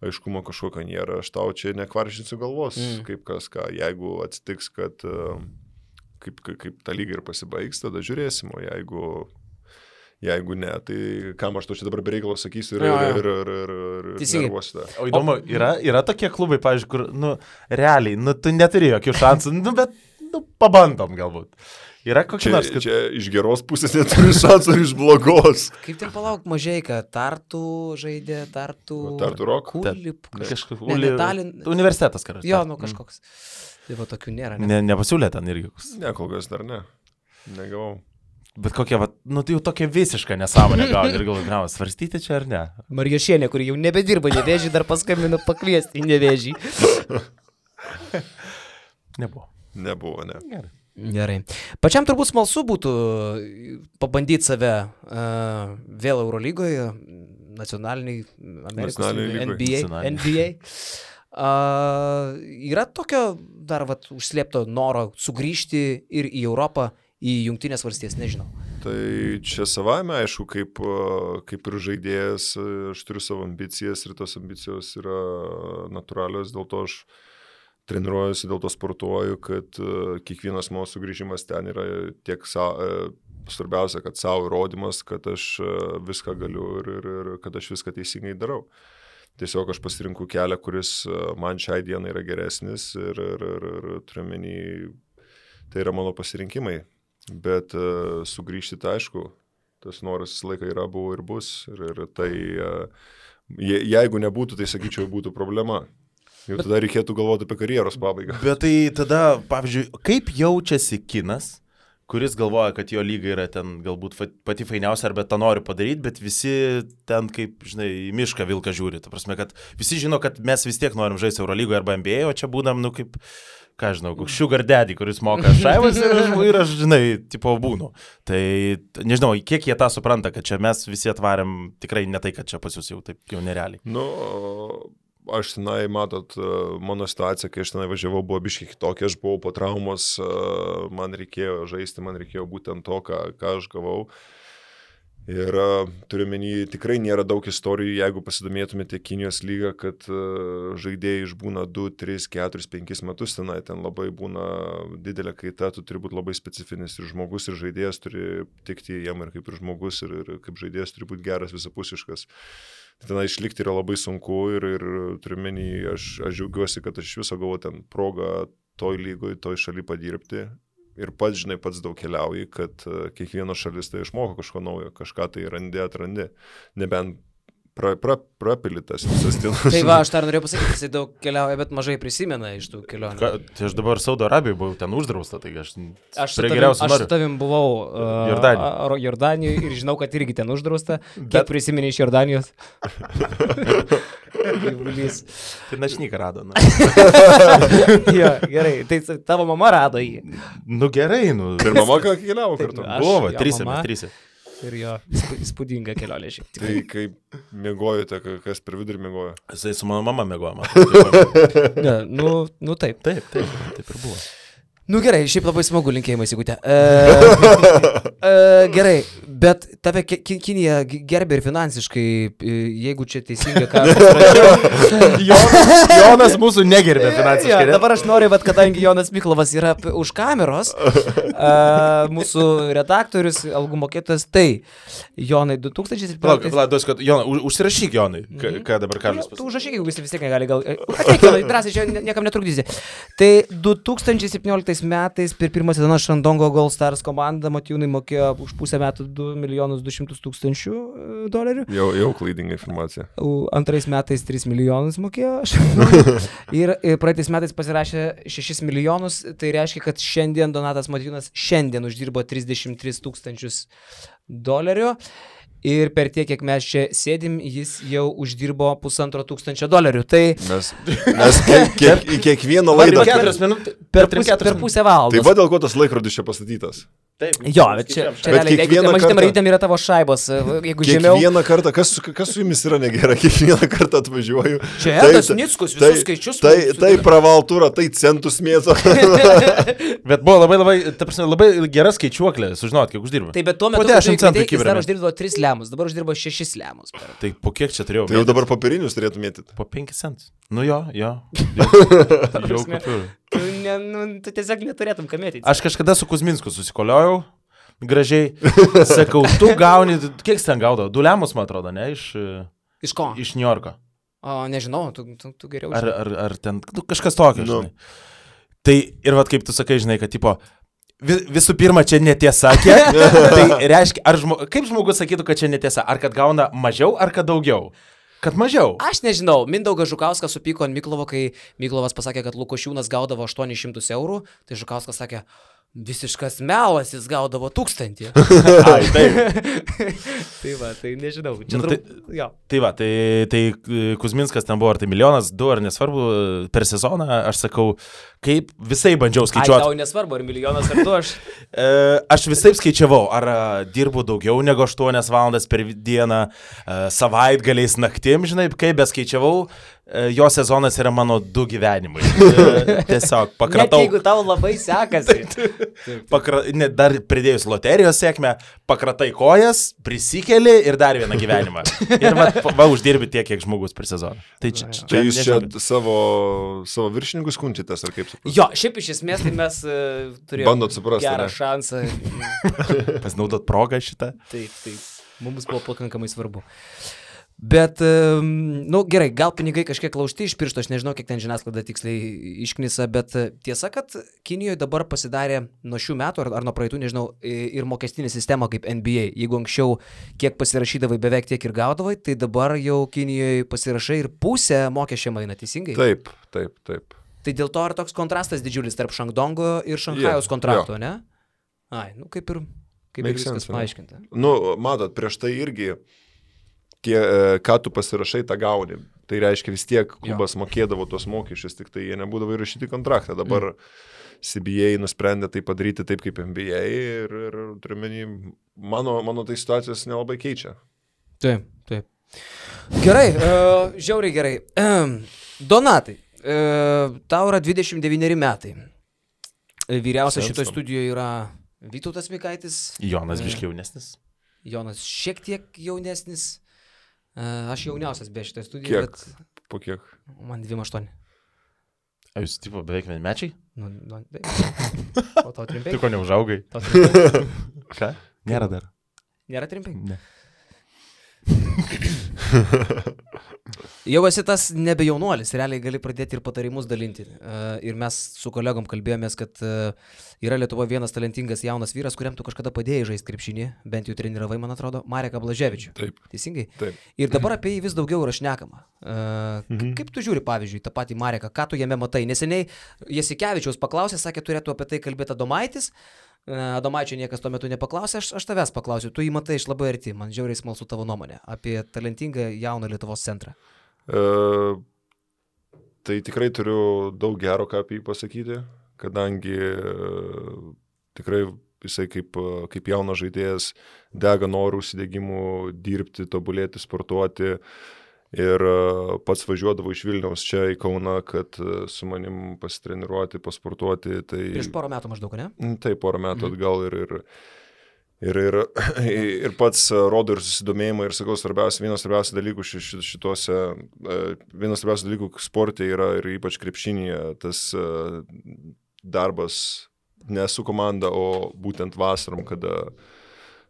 aiškumo kažkokio nėra, aš tau čia nekvaršinsiu galvos, kaip kas ką. Jeigu atsitiks, kad kaip ta lyga ir pasibaigs, tada žiūrėsim, o jeigu ne, tai kam aš to čia dabar bereikalo sakysiu ir nervuosiu.
O įdomu, yra tokie klubai, pavyzdžiui, kur, realiai, tu neturi jokių šansų, bet, pabandom galbūt. Yra kokia nors, kad...
Čia iš geros pusės neturi šansų ar iš blogos.
Kaip ten palauk Mažeika, Tartu žaidė, Tartu
Rock?
Kulip,
Universitetas karas.
Jo, kažkoks. Tai va tokių nėra.
Nepasiūlė ten irgi.
Ne, kol kas dar ne. Negavau.
Bet kokia, nu tai jau tokia visiška nesąmonė gal ir galvoju, svarstyti čia ar ne?
Marijošienė, kuri jau nebedirba Nevėžį, dar paskambino pakviesti į Nevėžį.
Nebuvo, ne.
Gerai. Pačiam turbūt smalsu būtų pabandyti save vėl Eurolygoje, nacionaliniai, Amerikos, NBA. Yra tokio dar užslėpto noro sugrįžti ir į Europą, į Jungtinės valstijas, nežinau.
Tai čia savame, aišku, kaip ir žaidėjas, aš turiu savo ambicijas ir tos ambicijos yra natūralios, dėl to aš treniruojuosi, dėl to sportuoju, kad kiekvienas mano sugrįžimas ten yra tiek svarbiausia, kad savo įrodymas, kad aš viską galiu ir kad aš viską teisingai darau. Tiesiog aš pasirinku kelią, kuris man šiai dienai yra geresnis ir turiu menį, tai yra mano pasirinkimai. Bet sugrįžti tai aišku, tas noras visą laiką yra, buvo ir bus. Ir tai, jeigu nebūtų, tai sakyčiau, būtų problema. Jau tada reikėtų galvoti apie karjeros pabaigą.
Bet tai tada, pavyzdžiui, kaip jaučiasi kinas, kuris galvoja, kad jo lyga yra ten galbūt pati fainiausia, arba tą nori padaryti, bet visi ten kaip, žinai, į mišką vilką žiūri. Ta prasme, kad visi žino, kad mes vis tiek norim žaisti Eurolygoje arba NBA, o čia būdam, nu kaip, ką žinau, sugar daddy, kuris moka šaivas ir aš, žinai, tipo būnu. Tai nežinau, kiek jie tą supranta, kad čia mes visi atvarėm tikrai ne tai, kad čia pas jūs jau taip jau nerealiai.
Nu, aš tenai, matot, mano situacija, kai aš tenai važiavau, buvo biškiai kitokia, aš buvau po traumos, man reikėjo žaisti, man reikėjo būtent to, ką aš gavau. Ir turiu menį, tikrai nėra daug istorijų, jeigu pasidomėtumėte Kinijos lygą, kad žaidėjai išbūna 2, 3, 4, 5 metus tenai, ten labai būna didelė kaita, tu turi būti labai specifinis ir žmogus, ir žaidėjas turi tikti jam ir kaip ir žmogus, ir kaip žaidėjas turi būti geras, visapusiškas. Tenai išlikti yra labai sunku ir turiu menį, aš džiaugiuosi, kad aš iš viso gavau ten progą toj lygoj, toj šaly padirbti. Ir pats, žinai, pats daug keliauji, kad kiekviena šalis tai išmoko kažko naujo, kažką tai atrandi, nebent prapilitas visas dienas.
Tai va, aš dar norėjau pasakyti, jisai daug keliauja, bet mažai prisimena iš tų kelionių.
Tai aš dabar Saudo Arabijoje buvau ten uždrausta, tai aš
su tavim buvau Jordanijoje ir žinau, kad irgi ten uždrausta. Kiek prisimeni iš Jordanijos?
Tai našnyką rado.
Jo, gerai, tai tavo mama rado jį.
Nu gerai, nu.
Ir mama ką keliavo kartu?
Buvo, trise.
Ir jo, įspūdinga kelionė šiek tiek.
Tai kaip miegojote, kas per vidurį miegojo?
Jisai su mano mama miegojo.
Ne, nu taip.
Taip ir buvo.
Nu gerai, šiaip labai smagu, linkėjimai, Sigutė. Gerai, bet tave Kinija gerbė ir finansiškai, jeigu čia teisinga, ką
Jonas mūsų negerbė finansiškai.
Ja, dabar aš noriu, bet kadangi Jonas Miklovas yra už kameros, mūsų redaktorius, algų mokėtojas, tai Jonai 2017...
Palauk, Jonai, užsirašyk Jonai, ką dabar Karlis pasakė.
Tu užrašyk, jeigu vis tiek negali, gal... Ateik, Jonai, drąsiai, čia niekam netrukdysi. Tai 2017 metais per pirmą sezoną Šandongo Gold Stars komanda Matijūnai mokėjo už pusę metų $2,200,000.
Jau klaidinga informacija.
Antrais metais 3 milijonus mokėjo. Ir praeitais metais pasirašė 6 milijonus. Tai reiškia, kad šiandien Donatas Matijūnas uždirbo $33,000. Ir per tiek, kiek mes čia sėdim, jis jau uždirbo $1,500. Tai
mes kiekvieną laidą...
Per pusę valandos.
Tai va dėl ko tas laikrodis čia pastatytas?
Taip.
Jo, bet čia realiai, jeigu mažytėm raidėm yra tavo šaibos, jeigu žemiau...
Kiekvieną kartą, kas su jumis yra negerai, kiekvieną kartą atvažiuoju.
Čia Edas Nickus, visus skaičius.
Tai pravaltūra, tai centus mėto.
Bet buvo labai gera skaičiuoklė, sužinot, kiek uždirba.
Tai bet tuo metu, jis dar uždirbo 3 lemus, dabar uždirbo 6 lemus.
Tai po kiek čia turėjau?
Tai jau dabar papirinius turėtų mėtyti.
Po 5 centus. Nu jo. Jau kapiru.
Tu tiesiog neturėtum kamėti.
Aš kažkada su Kuzminsku susikoliojau, gražiai, sakau, tu gauni, kiek ten gaudavo? 2 lemus, man atrodo, ne?
Iš ko?
Iš New Yorko.
O, nežinau, tu geriau
žinai. Ar ten, kažkas tokio, žinai. Tai ir vat kaip tu sakai, žinai, kad tipo, visų pirma, čia netiesa, kiek? Tai reiškia, kaip žmogus sakytų, kad čia netiesa? Ar kad gauna mažiau, ar kad daugiau? Kad mažiau.
Aš nežinau, Mindaugas Žukauskas supyko ant Miklovo, kai Miklovas pasakė, kad Lukošiūnas gaudavo $800, tai Žukauskas sakė, Visiškas melas, jis gaudavo 1000.
Ai, taip.
Tai va, tai nežinau. Čia
Tai va, tai Kuzminskas ten buvo, ar tai 1 milijonas, 2 ar nesvarbu, per sezoną, aš sakau, kaip visai bandžiau skaičiuoti.
Ai, tau nesvarbu, ar 1 milijonas ar 2 aš.
Aš visai skaičiavau, ar dirbu daugiau negu 8 valandas per dieną, savaitgaliais naktim, žinai, kaip beskaičiavau. Jo sezonas yra mano 2 gyvenimai. Tiesiog pakratau.
Net jeigu tau labai sekasi.
Dar pridėjus loterijos sėkmę, pakratai kojas, prisikeli ir dar vieną gyvenimą. Ir va uždirbi tiek, kiek žmogus per sezoną. Tai
jūs čia savo viršininkus kunčitės, ar kaip suprantate?
Jo, šiaip iš esmės tai mes turėjome gerą šansą.
Pasinaudot progą šitą.
Taip. Mums buvo pakankamai svarbu. Bet, gerai, gal pinigai kažkiek laužti iš piršto, aš nežinau, kiek ten žiniasklaida tiksliai išknisa, bet tiesa, kad Kinijoje dabar pasidarė nuo šių metų ar nuo praeitų, nežinau, ir mokestinė sistema kaip NBA. Jeigu anksčiau kiek pasirašydavai, beveik tiek ir gaudavai, tai dabar jau Kinijoje pasirašai ir pusę mokesčiam eina, teisingai?
Taip.
Tai dėl to ar toks kontrastas didžiulis tarp Šangdongo ir Šanchajaus kontrakto, ne? Ai, kaip ir viskas paaiškinta.
Matot, prieš tai irgi ką tu pasirašai, tą gauni. Tai reiškia vis tiek klubas mokėdavo tos mokesčius, tik tai jie nebūdavo įrašyti kontraktą. Dabar CBA nusprendė tai padaryti taip kaip NBA ir turiuomenį, mano tai situacijos nelabai keičia.
Taip. Gerai, žiauriai gerai. Donatai, tau yra 29 metai. Vyriausias šitoje studijoje yra Vytautas Mikaitis.
Jonas biškiai jaunesnis.
Jonas šiek tiek jaunesnis. Aš jauniausias be šitoje
Kiek?
studijoje. Bet...
Po kiek?
Man 28.
A jūs tipo beveik vienmečiai?
O tau 35?
Tu ko neužaugai? Ką? Nėra dar.
Nėra 35?
Ne.
Jau esi tas nebe jaunuolis, realiai gali pradėti ir patarimus dalinti. Ir mes su kolegom kalbėjomės, kad yra Lietuvoje vienas talentingas jaunas vyras, kuriam tu kažkada padėjai žaisti krepšinį, bent jau treniravai, man atrodo, Mareką Blaževičių.
Taip.
Teisingai?
Taip.
Ir dabar apie jį vis daugiau yra šnekama. Kaip tu žiūri, pavyzdžiui, tą patį Mareką, ką tu jame matai? Neseniai Jasikevičiaus paklausė, sakė, turėtų apie tai kalbėti Adomaitis. Adomaičio niekas tuo metu nepaklausė, aš tavęs paklausiu, tu jį matai iš labai arti, man žiauriai smalsu tavo nuomonė apie talentingą jauną Lietuvos centrą.
Tai tikrai turiu daug gero ką apie jį pasakyti, kadangi tikrai jisai kaip jaunas žaidėjas dega norų, užsidegimų dirbti, tobulėti, sportuoti. Ir pats važiuodavo iš Vilniaus čia į Kauną, kad su manim pasitreniruoti, pasportuoti. Tai...
Prieš porą metų maždaug, ne?
Taip, porą metų atgal ir pats rodo ir susidomėjimą ir sakau, vienas svarbiausių dalykų vienas svarbiausių dalykų sporte yra ir ypač krepšinyje tas darbas ne su komanda, o būtent vasarom,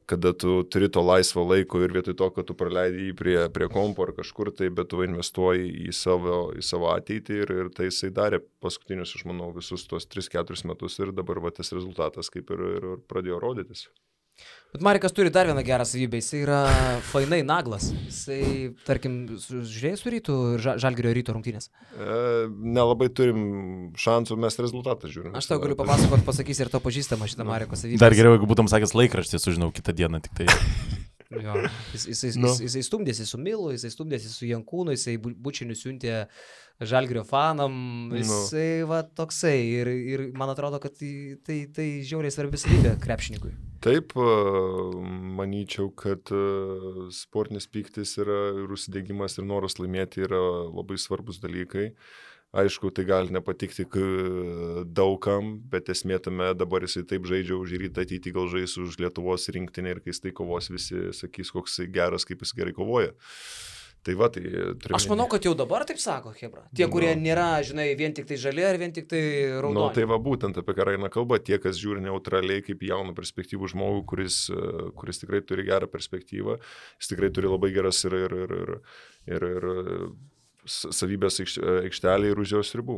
kada tu turi to laisvo laiko ir vietoj to, kad tu praleidai jį prie kompo ar kažkur tai, bet tu investuoji į savo ateitį ir tai jisai darė paskutinius, aš manau, visus tos 3-4 metus ir dabar tas rezultatas kaip ir pradėjo rodytis.
Bet Marekas turi dar vieną gerą savybę, jisai yra fainai naglas. Jisai, tarkim, žiūrėjai su Rytu ir Žalgirio Ryto rungtynės?
Nelabai turim šansų, mes rezultatą žiūrim.
Aš tau galiu papasakoti, pasakysi ir to pažįstama šitą Mareko savybę.
Dar geriau, jeigu būtum sakęs laikraštį, sužinau kitą dieną tik tai.
Jo, jisai stumdėsi su Milu, jisai stumdėsi su Jankūnu, jisai bučiniu siuntė Žalgirio fanam, jisai va toksai ir man atrodo, kad tai žiauriai svarbi savybė krepšininkui.
Taip, manyčiau, kad sportinis pyktis yra ir užsidegimas ir noras laimėti yra labai svarbus dalykai. Aišku, tai gali nepatikti daugam, bet esmė tame dabar jisai taip žaidžia už Rytą, ateitį gal žais už Lietuvos rinktinę ir kai jis tai kovos, visi sakys, koks jis geras, kaip jis gerai kovoja. Tai va, tai
aš manau, kad jau dabar taip sako, Hebra. Tie, kurie nėra, žinai, vien tik tai žali ar vien tik tai raudoni.
Tai va, būtent apie ką eina kalba, tie, kas žiūri neutraliai kaip jauną perspektyvų žmogų, kuris tikrai turi gerą perspektyvą, jis tikrai turi labai geras ir savybės aikštelė ir už jos ribų.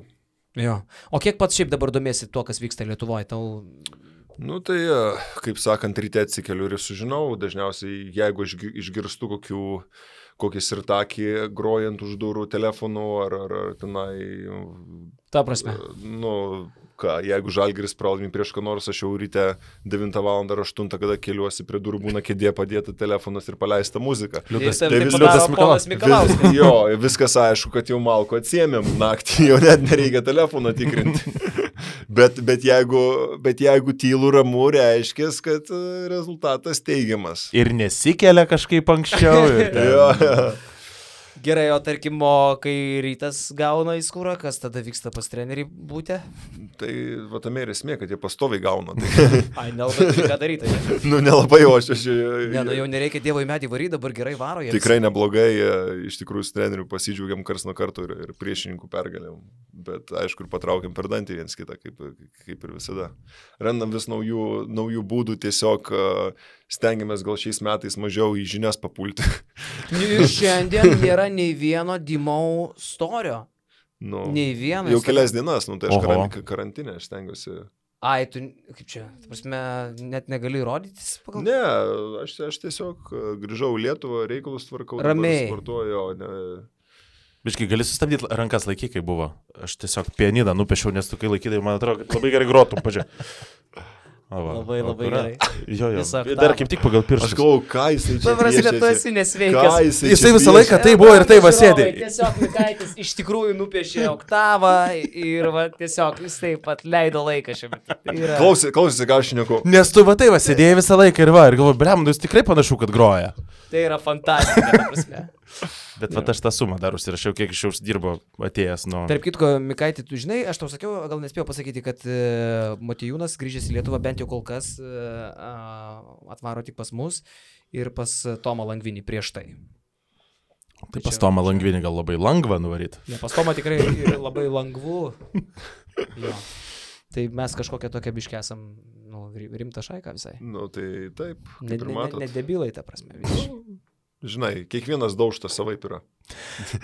Jo. O kiek pats šiaip dabar domiesi tuo, kas vyksta Lietuvoje?
Tai, kaip sakant, ryte atsikeliu ir sužinau, dažniausiai, jeigu išgirstu kokį sirtakį grojant už durų telefonu ar tenai...
Ta prasme.
Jeigu Žalgiris pralaimi prieš ką nors, aš jau ryte 9 val. Ar 8, kada keliuosi prie durų, būna kėdė padėta telefonas ir paleista muzika.
Liudas Mikalauskas.
Jo, viskas aišku, kad jau malko atsiėmėm naktį, jau net nereikia telefono tikrinti. bet jeigu tylu ramu, reiškia, kad rezultatas teigiamas.
Ir nesikelia kažkaip anksčiau.
Jo.
Gerai, o tarkim, kai Rytas gauna į skūrą, kas tada vyksta pas trenerį būti?
Tai va tame ir esmė, kad jie pastoviai gauna.
Ai, nelabai turi ką daryti.
Nelabai, o aš...
Ne, jau nereikia Dievo į medį varyti, dabar gerai varo.
Tikrai neblogai, iš tikrųjų su treneriu pasidžiaugiam kars nuo karto ir priešininkų pergalėm. Bet aišku, ir patraukiam per dantį viens kitą, kaip ir visada. Randam vis naujų būdų, tiesiog stengiamės gal šiais metais mažiau į žinias papulti.
Šiandien nėra nei vieno Dimau storio. Nei vieno.
Jau kelias dienas, tai aš karantinę, aš stengiuosi.
Ai, tu, kaip čia, prasme, net negali rodytis pagal?
Ne, aš tiesiog grįžau į Lietuvą, reikalus tvarkau.
Ramiai.
Sportuoju, ne...
Biškai, gali sustabdyti rankas laiky, kai buvo. Aš tiesiog pianiną nupešiau, nes tu kai laikydai, man atrodo, kad labai gerai grotum, pažiūrėk.
Labai gerai.
Jo. Dar kaip tik pagal pirštus.
Aš galvoju, ką jisai čia
piešėsi. Tu esi nesveikas.
Jisai visą laiką tai buvo ir tai va sėdė.
Tiesiog Mikaitis iš tikrųjų nupiešė oktavą ir va tiesiog jis taip pat leido laiką šiame.
Klausysi, ką aš šneku.
Nes tu va tai va sėdėjai visą laiką ir galvoju, blem, jūs tikrai panašu, kad groja.
Tai yra fantastika, ta prasme.
Bet va aš tą sumą dar užsirašiau, kiek iš jau uždirbo atėjęs nuo...
Tarp kitko, Mikaitį, tu žinai, aš tau sakiau, gal nespėjau pasakyti, kad Motiejūnas grįžęs į Lietuvą bent jau kol kas atvaro tik pas mus ir pas Tomą Langvinį prieš tai.
Tai pas Tomą Langvinį gal labai lengva nuvaryti.
Ne, pas Tomą tikrai labai lengvu. Jo. Tai mes kažkokią tokią biškę esam, rimtą šaiką visai.
Tai taip.
Ne debilai, ta prasme.
Žinai, kiekvienas daužtas savaip yra.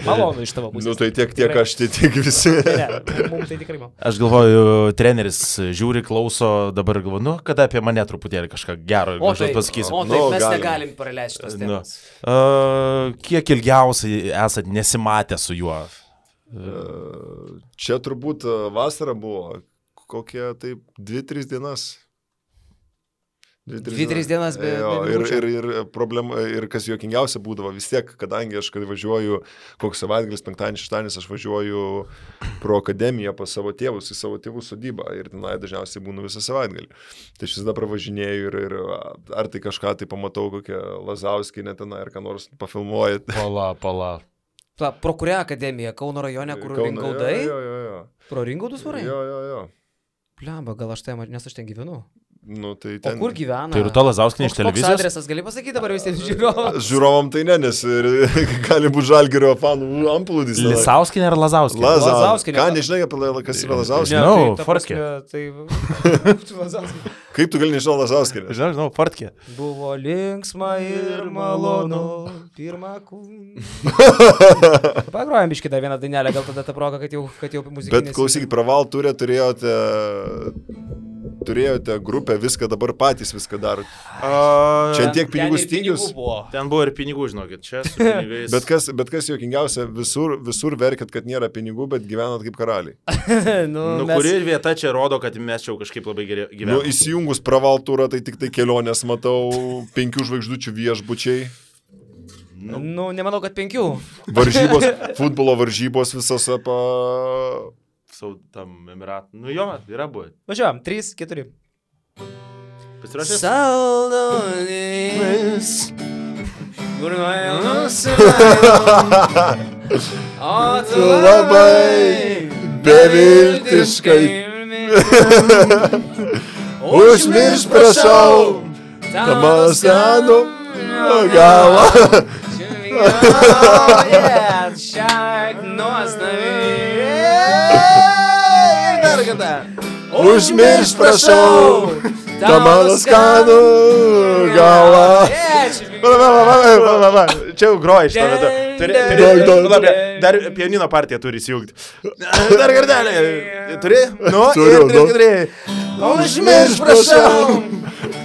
Malonu iš tavo pusės.
Tai tiek aš, tiek visi.
Ne, mums tai tikrai malonu.
Aš galvoju, treneris žiūri, klauso, dabar galvoju, kada apie mane truputėlį kažką gero pasakys.
O taip, mes negalim praleisti tos temos.
Kiek ilgiausiai esat nesimatę su juo?
Čia turbūt vasara buvo, kokie taip 2-3 dienas.
2-3 dienas be...
Ir problema, ir kas juokingiausia būdavo, vis tiek, kadangi aš, kai važiuoju, koks savaitgalis, penktadienis, šeštadienis, aš važiuoju pro akademiją pas savo tėvus, į savo tėvų sodybą ir tenai dažniausiai būnu visą savaitgalį. Tai aš visada pravažinėju ir ar tai kažką tai pamatau, kokią Lazauskienę tenai, ar ką nors pafilmuoju.
Pala.
Pro kurią akademiją? Kauno rajone, kur Ringaudai?
Jo.
Pro Ringaudus varai?
Jo.
Pliamba, gal aš ten, nes aš ten gyvenu.
Tai ten...
O kur gyvena?
Tai Rūta Lazauskienė iš televizijos?
Koks adresas, gali pasakyti dabar visiems žiūrovams?
Žiūrovam tai ne, nes gali būti Žalgirio fanų amplūdis.
Lisauskinė ar Lazauskienė?
Lazauskienė.
Ką, nežinai, kas yra Lazauskienė?
Žinau, Fortkė.
Kaip tu gali nežinau Lazauskienę?
Žinau, Fortkė.
Buvo linksma ir malonu, pirmą kūną. Pagrojam biškį dar vieną dainelę, gal tada ta proga, kad jau muzikinės.
Bet klausykit, Praval turė turėjote grupę, viską dabar patys viską darot. Čia tiek pinigų stygius.
Ten buvo ir pinigų, žinokit, čia su pinigais.
Bet kas juokingiausia, visur verkit, kad nėra pinigų, bet gyvenat kaip karaliai.
Kuri vieta čia rodo, kad mes čia kažkaip labai gerai gyvename.
Įsijungus Praval turą, tai tik tai kelionės matau, 5 žvaigždučių viešbučiai.
Nemanau, kad 5.
Varžybos, futbolo varžybos visose
tam Emirat. Jo, yra buvę.
Važiuojam, 3-4.
Pasirašęs?
Saldoninis. Kur nuėjau o tu
labai beviltiškai. Užmirš, prašau, tą mano senų galą.
Šiak nuostabiai.
Užmirš, prašau, tą mano skanų galą.
Čia jau groja šitą vietą. Dar pianino partiją turi įsijungti. Dar kartelį. Turi? Turiu.
Užmirš, prašau,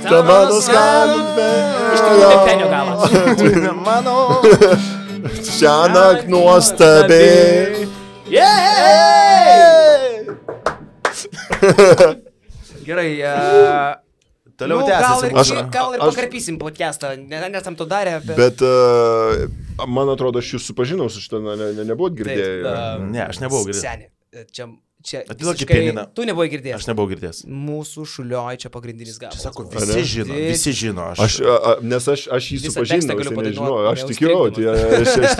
tą mano skanų
galą.
Šiąnakt nuostabiai.
Gerai.
Toliau tęsiasi.
Gal ir pakarpysim podcastą, nesam to darę.
Bet man atrodo, aš jūs supažinau su šitą, nebuvot girdėję.
Ne, aš nebuvau girdėjęs.
Seni, čia
Atiduokit pianiną.
Tu nebuvai girdėjęs.
Aš nebuvau girdėjęs.
Mūsų Šulioj čia pagrindinis gabalas.
Čia sako, visi žino.
Nes aš jį
Visą
supažinau,
tekstą galiu
jisai nežinau,
padainuot,
aš tikiu,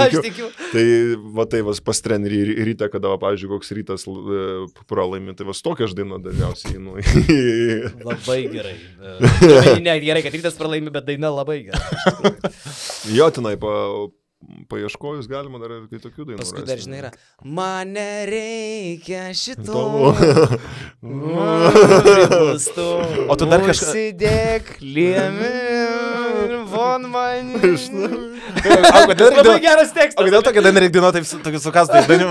Aš tikiu.
Tai va tai pas trenerį ryte, kada, pavyzdžiui, koks rytas pralaimi, tai vas tokia aš daina dažniausiai einu.
Labai gerai. Ne, gerai, kad rytas pralaimi, bet daina labai gerai.
Jo, tenai paieškojus galima dar ir tokių dainų.
Paskui dar žinai yra. Man nereikia šito.
O tu dar kažką...
Užsidėk liemi, von man.
Labai
Labai geras tekstas.
O kodėl tokia daina reikia dainuoti, tokius sukastais dainių?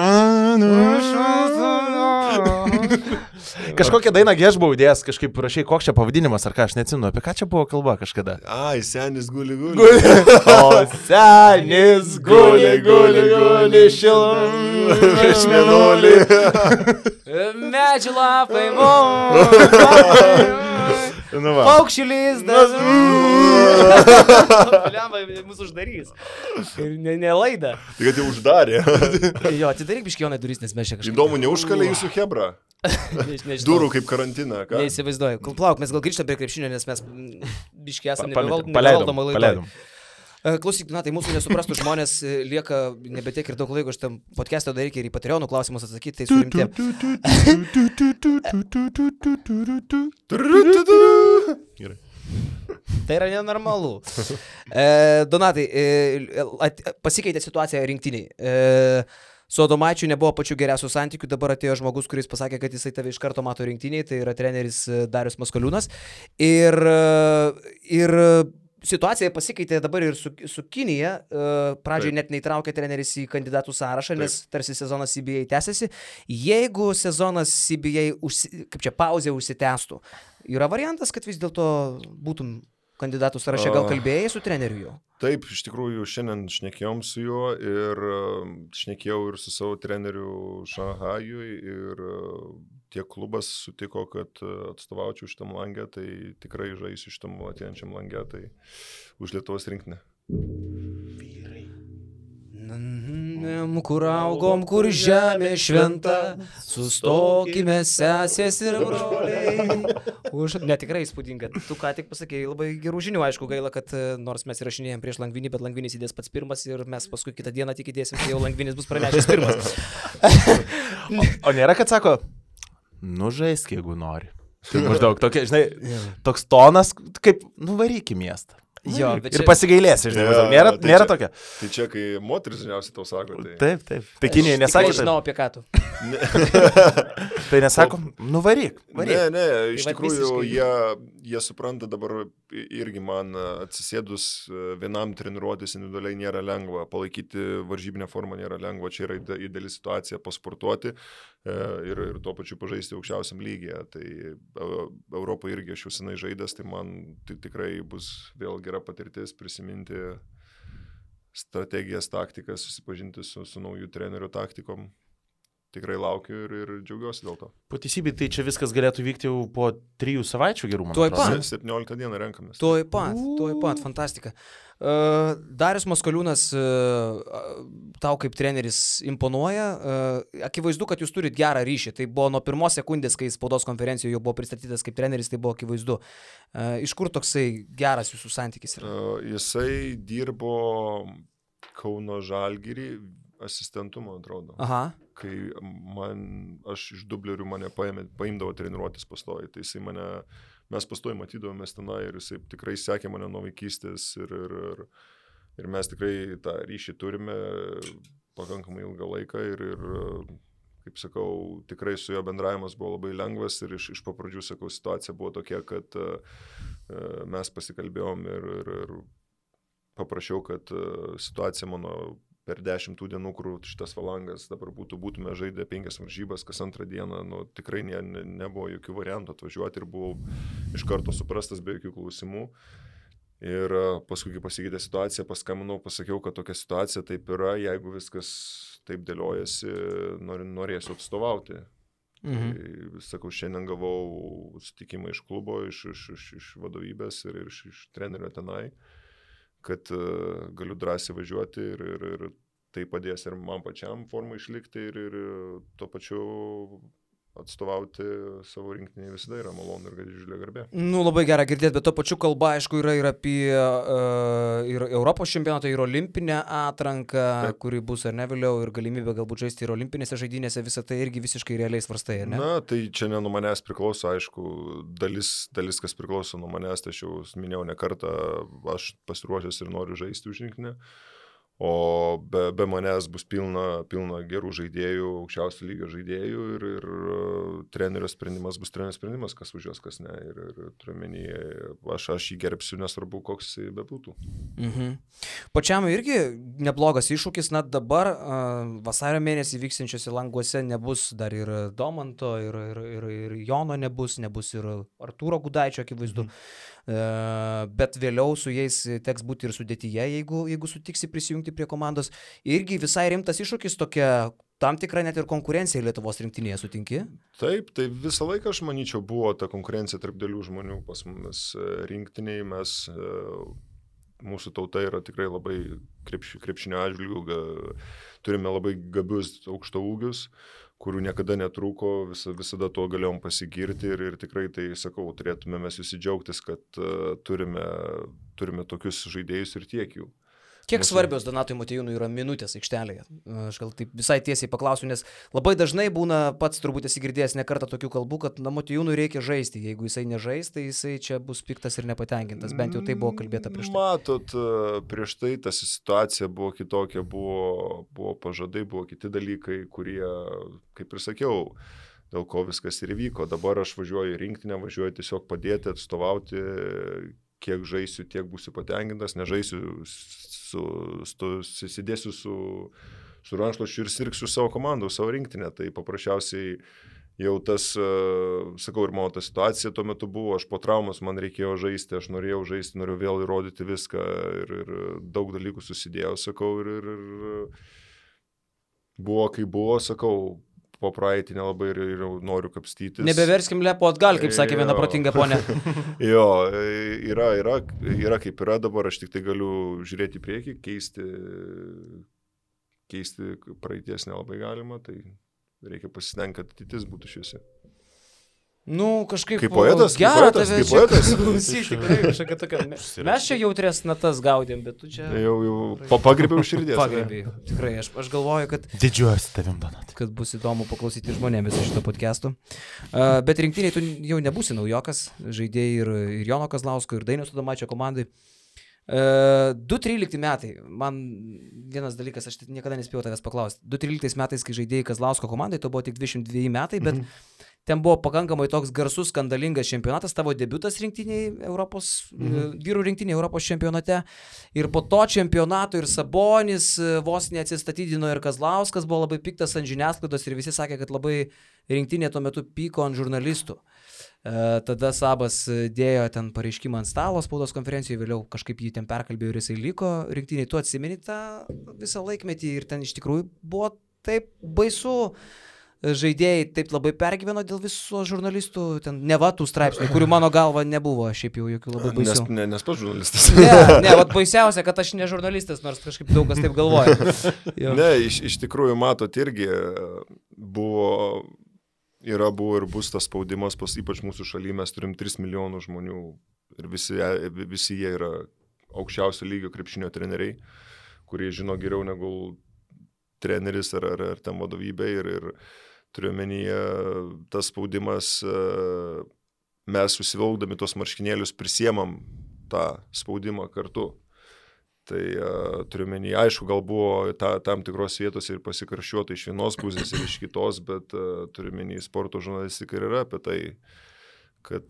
Kažkokią dainą aš buvau įdėjęs, kažkaip rašai, koks čia pavadinimas, ar ką, aš neatsimenu, apie ką čia buvo kalba kažkada.
Ai, senis guli.
O senis guli, šilum, iš mėnulį.
Medžių lapai, paukščių lizdas. Mūsų uždarys. Ir ne laida.
Tai kad jau uždarė.
Jo, atidaryk biškionai duris, nes mes čia kažkaip.
Įdomu, neužkalė jūsų hebra. Durų kaip karantiną.
Neįsivaizduoju. Plauk, mes gal grįžtam prie krepšinio, nes mes biškiai esame
Paleidom.
Klausyk, tai mūsų nesuprastų žmonės lieka nebetiek ir daug laiko šitam podcast'o daryti ir į Patreonų klausimus atsakyti, tai surimtė.
Gerai.
Tai yra nenormalu. Donatai, pasikeitė situacija rinktiniai. Su Adomaičiu nebuvo pačių geriausių santykių, dabar atėjo žmogus, kuris pasakė, kad jisai tave iš karto mato rinktiniai, tai yra treneris Darius Maskoliūnas. Ir situacija pasikeitė dabar ir su Kinija. Pradžiai net neįtraukė treneris į kandidatų sąrašą, nes tarsi sezonas CBA tęsiasi. Jeigu sezonas CBA, kaip čia, pauzė užsitęstų, yra variantas, kad vis dėlto būtum kandidatų sąraše, gal kalbėjai su treneriu jo?
Taip, iš tikrųjų, šiandien šnekėjom su juo ir šnekėjau ir su savo treneriu Šanhajui ir tiek klubas sutiko, kad atstovaučiau šitam langę, tai tikrai žaisiu šitam ateinančiam langę, tai už Lietuvos rinktinę.
Kur augom, kur žemė šventa, sustokime sesės ir broliai. Ne, tikrai įspūdinga. Tu ką tik pasakėjai labai gerų žinių, aišku, gaila, kad nors mes įrašinėjom prieš Langvinį, bet Langvinis įdės pats pirmas ir mes paskui kitą dieną tik įdėsim, kai jau Langvinis bus pranešęs pirmas.
O nėra, kad sako, žaisk, jeigu nori. Tai maždaug tokia, žinai, toks tonas, kaip nuvaryk į miestą.
Jo,
ir čia... pasigailėsi, žinai, nėra tokia.
Tai čia, kai moteris dažniausiai tau sako, tai...
Taip. Tai Kinijai nesako.
Aš žinau apie ką tu.
Tai nesako, nuvaryk.
Ne, iš tikrųjų, jie supranta dabar irgi man atsisėdus vienam treniruotis individualiai nėra lengva, palaikyti varžybinę formą nėra lengva, čia yra ideali situacija pasportuoti ir tuo pačiu pažaisti aukščiausiam lygyje. Tai Europoje irgi aš jau senai žaidęs, tai man tikrai bus vėl gera patirtis prisiminti strategijas, taktikas, susipažinti su naujų trenerių taktikom. Tikrai laukiu ir džiaugiuosi dėl to.
Po teisybei, tai čia viskas galėtų vykti jau po 3 savaičių gerų, man
atrodo. 17 dieną renkamės.
Tuoj pat, fantastika. Darius Maskoliūnas tau kaip treneris imponuoja. Akivaizdu, kad jūs turit gerą ryšį. Tai buvo nuo pirmos sekundės, kai spaudos konferencijoje jau buvo pristatytas kaip treneris, tai buvo akivaizdu. Iš kur toksai geras jūsų santykis yra?
Jisai dirbo Kauno Žalgirį asistentu, man atrodo.
Aha.
Kai aš iš dublerių mane paimdavo treniruotis pastoji, tai jisai mes pastoji matydavomės tenai ir jisai tikrai sekė mane nuo vaikystės ir mes tikrai tą ryšį turime pakankamai ilgą laiką ir kaip sakau, tikrai su jo bendravimas buvo labai lengvas ir iš papradžių, sakau, situacija buvo tokia, kad mes pasikalbėjom ir paprašiau, kad situacija mano per 10 dienų, kur šitas valangas dabar būtume žaidę 5 varžybas, kas antrą dieną, tikrai nebuvo jokių variantų atvažiuoti ir buvau iš karto suprastas be jokių klausimų. Ir paskui, kai pasikeitė situacija, paskambinau, pasakiau, kad tokia situacija taip yra, jeigu viskas taip dėliojasi, norėsiu atstovauti. Tai, sakau, šiandien gavau sutikimą iš klubo, iš vadovybės ir iš trenerio tenai, kad galiu drąsiai važiuoti ir tai padės ir man pačiam formą išlikti ir tuo pačiu atstovauti savo rinktinį visada yra malonu ir didžiulė garbė.
Nu, labai gera girdėti, bet tuo pačiu kalba, aišku, yra ir apie ir Europos čempionatą, ir olimpinę atranką, kuri bus ar ne vėliau, ir galimybę galbūt žaisti ir olimpinėse žaidynėse, visą tai irgi visiškai realiai svarstai, ar ne?
Na, tai čia ne nuo manęs priklauso, aišku, dalis kas priklauso nuo manęs, tai aš jau minėjau ne kartą, aš pasiruošęs ir noriu žaisti už rinktinę. O be manęs bus pilna gerų žaidėjų, aukščiausio lygio žaidėjų ir trenerio sprendimas bus trenerio sprendimas, kas važiuos, kas ne. Ir turiu menį, aš jį gerbsiu, nesvarbu, koks jis bebūtų.
Pačiam irgi neblogas iššūkis, na dabar vasario mėnesį vyksiančiose Languose nebus dar ir Domanto, ir Jono nebus ir Artūro Gudaičio, akivaizdu. Bet vėliau su jais teks būti ir sudėtyje, jeigu sutiksi prisijungti prie komandos. Irgi visai rimtas iššūkis, tokia tam tikra net ir konkurencija Lietuvos rinktinėje, sutinki?
Taip, tai visą laiką, aš manyčiau, buvo ta konkurencija tarp dėlių žmonių pas mumis rinktiniai. Mūsų tauta yra tikrai labai krepšinio atžvilgių, turime labai gabius aukšto ūgius, kurių niekada netrūko, visada tuo galėjom pasigirti ir tikrai tai, sakau, turėtume mes visi džiaugtis, kad turime tokius žaidėjus ir tiek jų.
Kiek svarbios Donatui Motiejūnui yra minutės aikštelėje? Aš gal taip visai tiesiai paklausiu, nes labai dažnai būna, pats turbūt esi girdėjęs ne kartą tokių kalbų, kad Motiejūnui reikia žaisti. Jeigu jisai nežais, tai jisai čia bus piktas ir nepatenkintas. Bent jau tai buvo kalbėta prieš tai.
Matot, prieš tai ta situacija buvo kitokia, buvo pažadai, buvo kiti dalykai, kurie, kaip ir sakiau, dėl ko viskas ir įvyko. Dabar aš važiuoju į rinktinę, važiuoju tiesiog padėti, atstovauti, kiek žaisiu, tiek būsiu patenkintas, nežaisiu, susidėsiu su rankšluosčiu ir sirgsiu savo komandą, savo rinktinę. Tai paprasčiausiai jau tas, sakau, ir mano ta situacija tuo metu buvo, aš po traumos man reikėjo žaisti, aš norėjau žaisti, norėjau vėl įrodyti viską ir daug dalykų susidėjau, sakau, ir buvo kaip buvo, sakau, po praeitį nelabai ir noriu kapstytis.
Nebeverskim lepo atgal, kaip sakė viena protinga ponė.
Jo, yra kaip yra dabar, aš tik tai galiu žiūrėti į priekį, keisti praeities nelabai galima, tai reikia pasistengti, kad ateitis būtų šviesi.
Nu, kažkaip
kaip poetas,
gera
tave čia
klausyti, tikrai kažkokia tokia. Mes čia jautrės natas gaudėm, bet tu čia...
Jau pagrėbiau širdės.
Pagrėbiau, tikrai, aš galvoju, kad...
Didžiuosi tavim, Donat.
Kad bus įdomu paklausyti žmonėmis šito podcastų. Bet rinktiniai tu jau nebūsi naujokas, žaidėjai ir Jono Kazlausko, ir Dainiaus Adomaičio komandai. 2013 metai, man vienas dalykas, aš niekada nespėjau tavęs paklausti. 2013 metais, kai žaidėjai Kazlausko komandai, to buvo tik 22 metai, bet ten buvo pakankamai toks garsus, skandalingas čempionatas, tavo debiutas rinktiniai Europos, vyrų rinktiniai Europos čempionate. Ir po to čempionato ir Sabonis vos neatsistatydino ir Kazlauskas buvo labai piktas ant žiniasklaidos ir visi sakė, kad labai rinktinė tuo metu pyko ant žurnalistų. Tada Sabas dėjo ten pareiškimą ant stalo spaudos konferencijoje, vėliau kažkaip jį ten perkalbėjo ir jisai liko rinktiniai. Tu atsimeni tą visą laikmetį ir ten iš tikrųjų buvo taip baisu. Žaidėjai taip labai pergyveno dėl viso žurnalistų, ten neva tų straipsnių, kurių mano galva nebuvo, šiaip jau jokių labai baisių.
Nes pats žurnalistas.
Ne, vat baisiausia, kad aš ne žurnalistas, nors kažkaip daug kas taip galvoja.
Ne, iš tikrųjų, matot, irgi buvo ir bus tas spaudimas, ypač mūsų šalyje mes turim 3 milijonų žmonių ir visi jie yra aukščiausio lygio krepšinio treneriai, kurie žino geriau negu treneris ar ten vadovybė ir turiu menyje tas spaudimas, mes susivilkdami tos marškinėlius prisiemam tą spaudimą kartu. Tai turiu menyje, aišku, gal buvo tam tikros vietos ir pasikarščiuota iš vienos pusės ir iš kitos, bet turiu menyje sporto žurnalistika ir yra apie tai, kad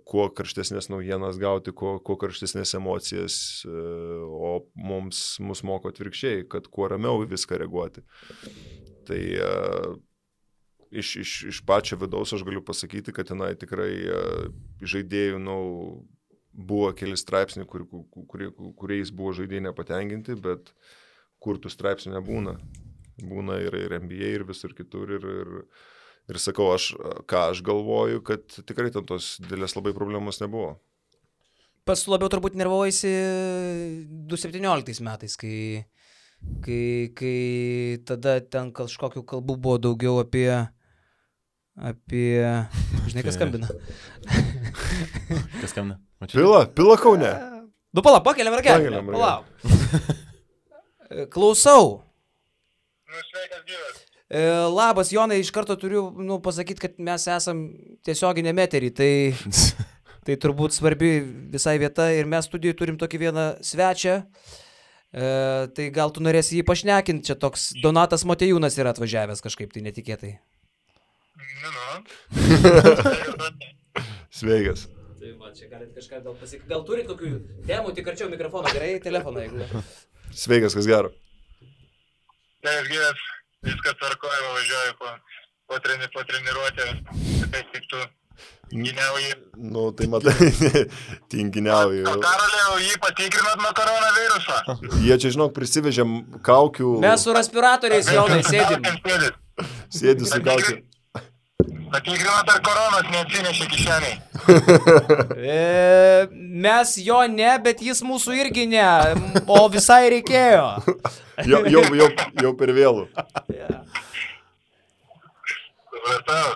kuo karštesnės naujienas gauti, kuo karštesnės emocijas, o mus moko atvirkščiai, kad kuo ramiau viską reaguoti. Tai iš pačio vidaus aš galiu pasakyti, kad tenai tikrai žaidėjų buvo keli straipsniai, kuriais buvo žaidėjai nepatenkinti, bet kur tų straipsnių nebūna. Būna ir NBA, ir visur kitur, Ir sakau, ką aš galvoju, kad tikrai ten tos didelės labai problemos nebuvo.
Pas labiau turbūt nervuojasi 2017 metais, kai tada ten kažkokių kalbų buvo daugiau apie... Žinai, kas skambina?
Kas skambina?
Pila Kaune.
Nu, palauk, pakeliam ragelį. Palauk. Klausau.
Nu, sveikas gyvas.
Labas, Jonai, iš karto turiu pasakyti, kad mes esam tiesioginėme eterį, tai turbūt svarbi visai vieta ir mes studijoje turim tokį vieną svečią, tai gal tu norėsi jį pašnekinti, čia toks Donatas Motiejūnas yra atvažiavęs kažkaip tai netikėtai.
Sveikas.
Tai va, čia galite kažką gal pasakyti. Gal turit kokių temų, tik arčiau mikrofoną, gerai, telefoną, jeigu.
Sveikas, kas gero.
Sveikas gyvas, viskas tvarkoja, važiuoju po treniruotę, taip tik tu giniauji.
Nu, tai matai, tinginiauji.
O Karolė, jį patikrinat nuo koronaviruso?
Jie čia, žinok, prisivežėm kaukių.
Mes su respiratoriais, Jonai, sėdim.
Sėdi su kaukiu.
Patikrinat, ar koronos neatsinešė kišeniai?
Mes jo ne, bet jis mūsų irgi ne, o visai reikėjo.
Jau per vėlų.
Supratau.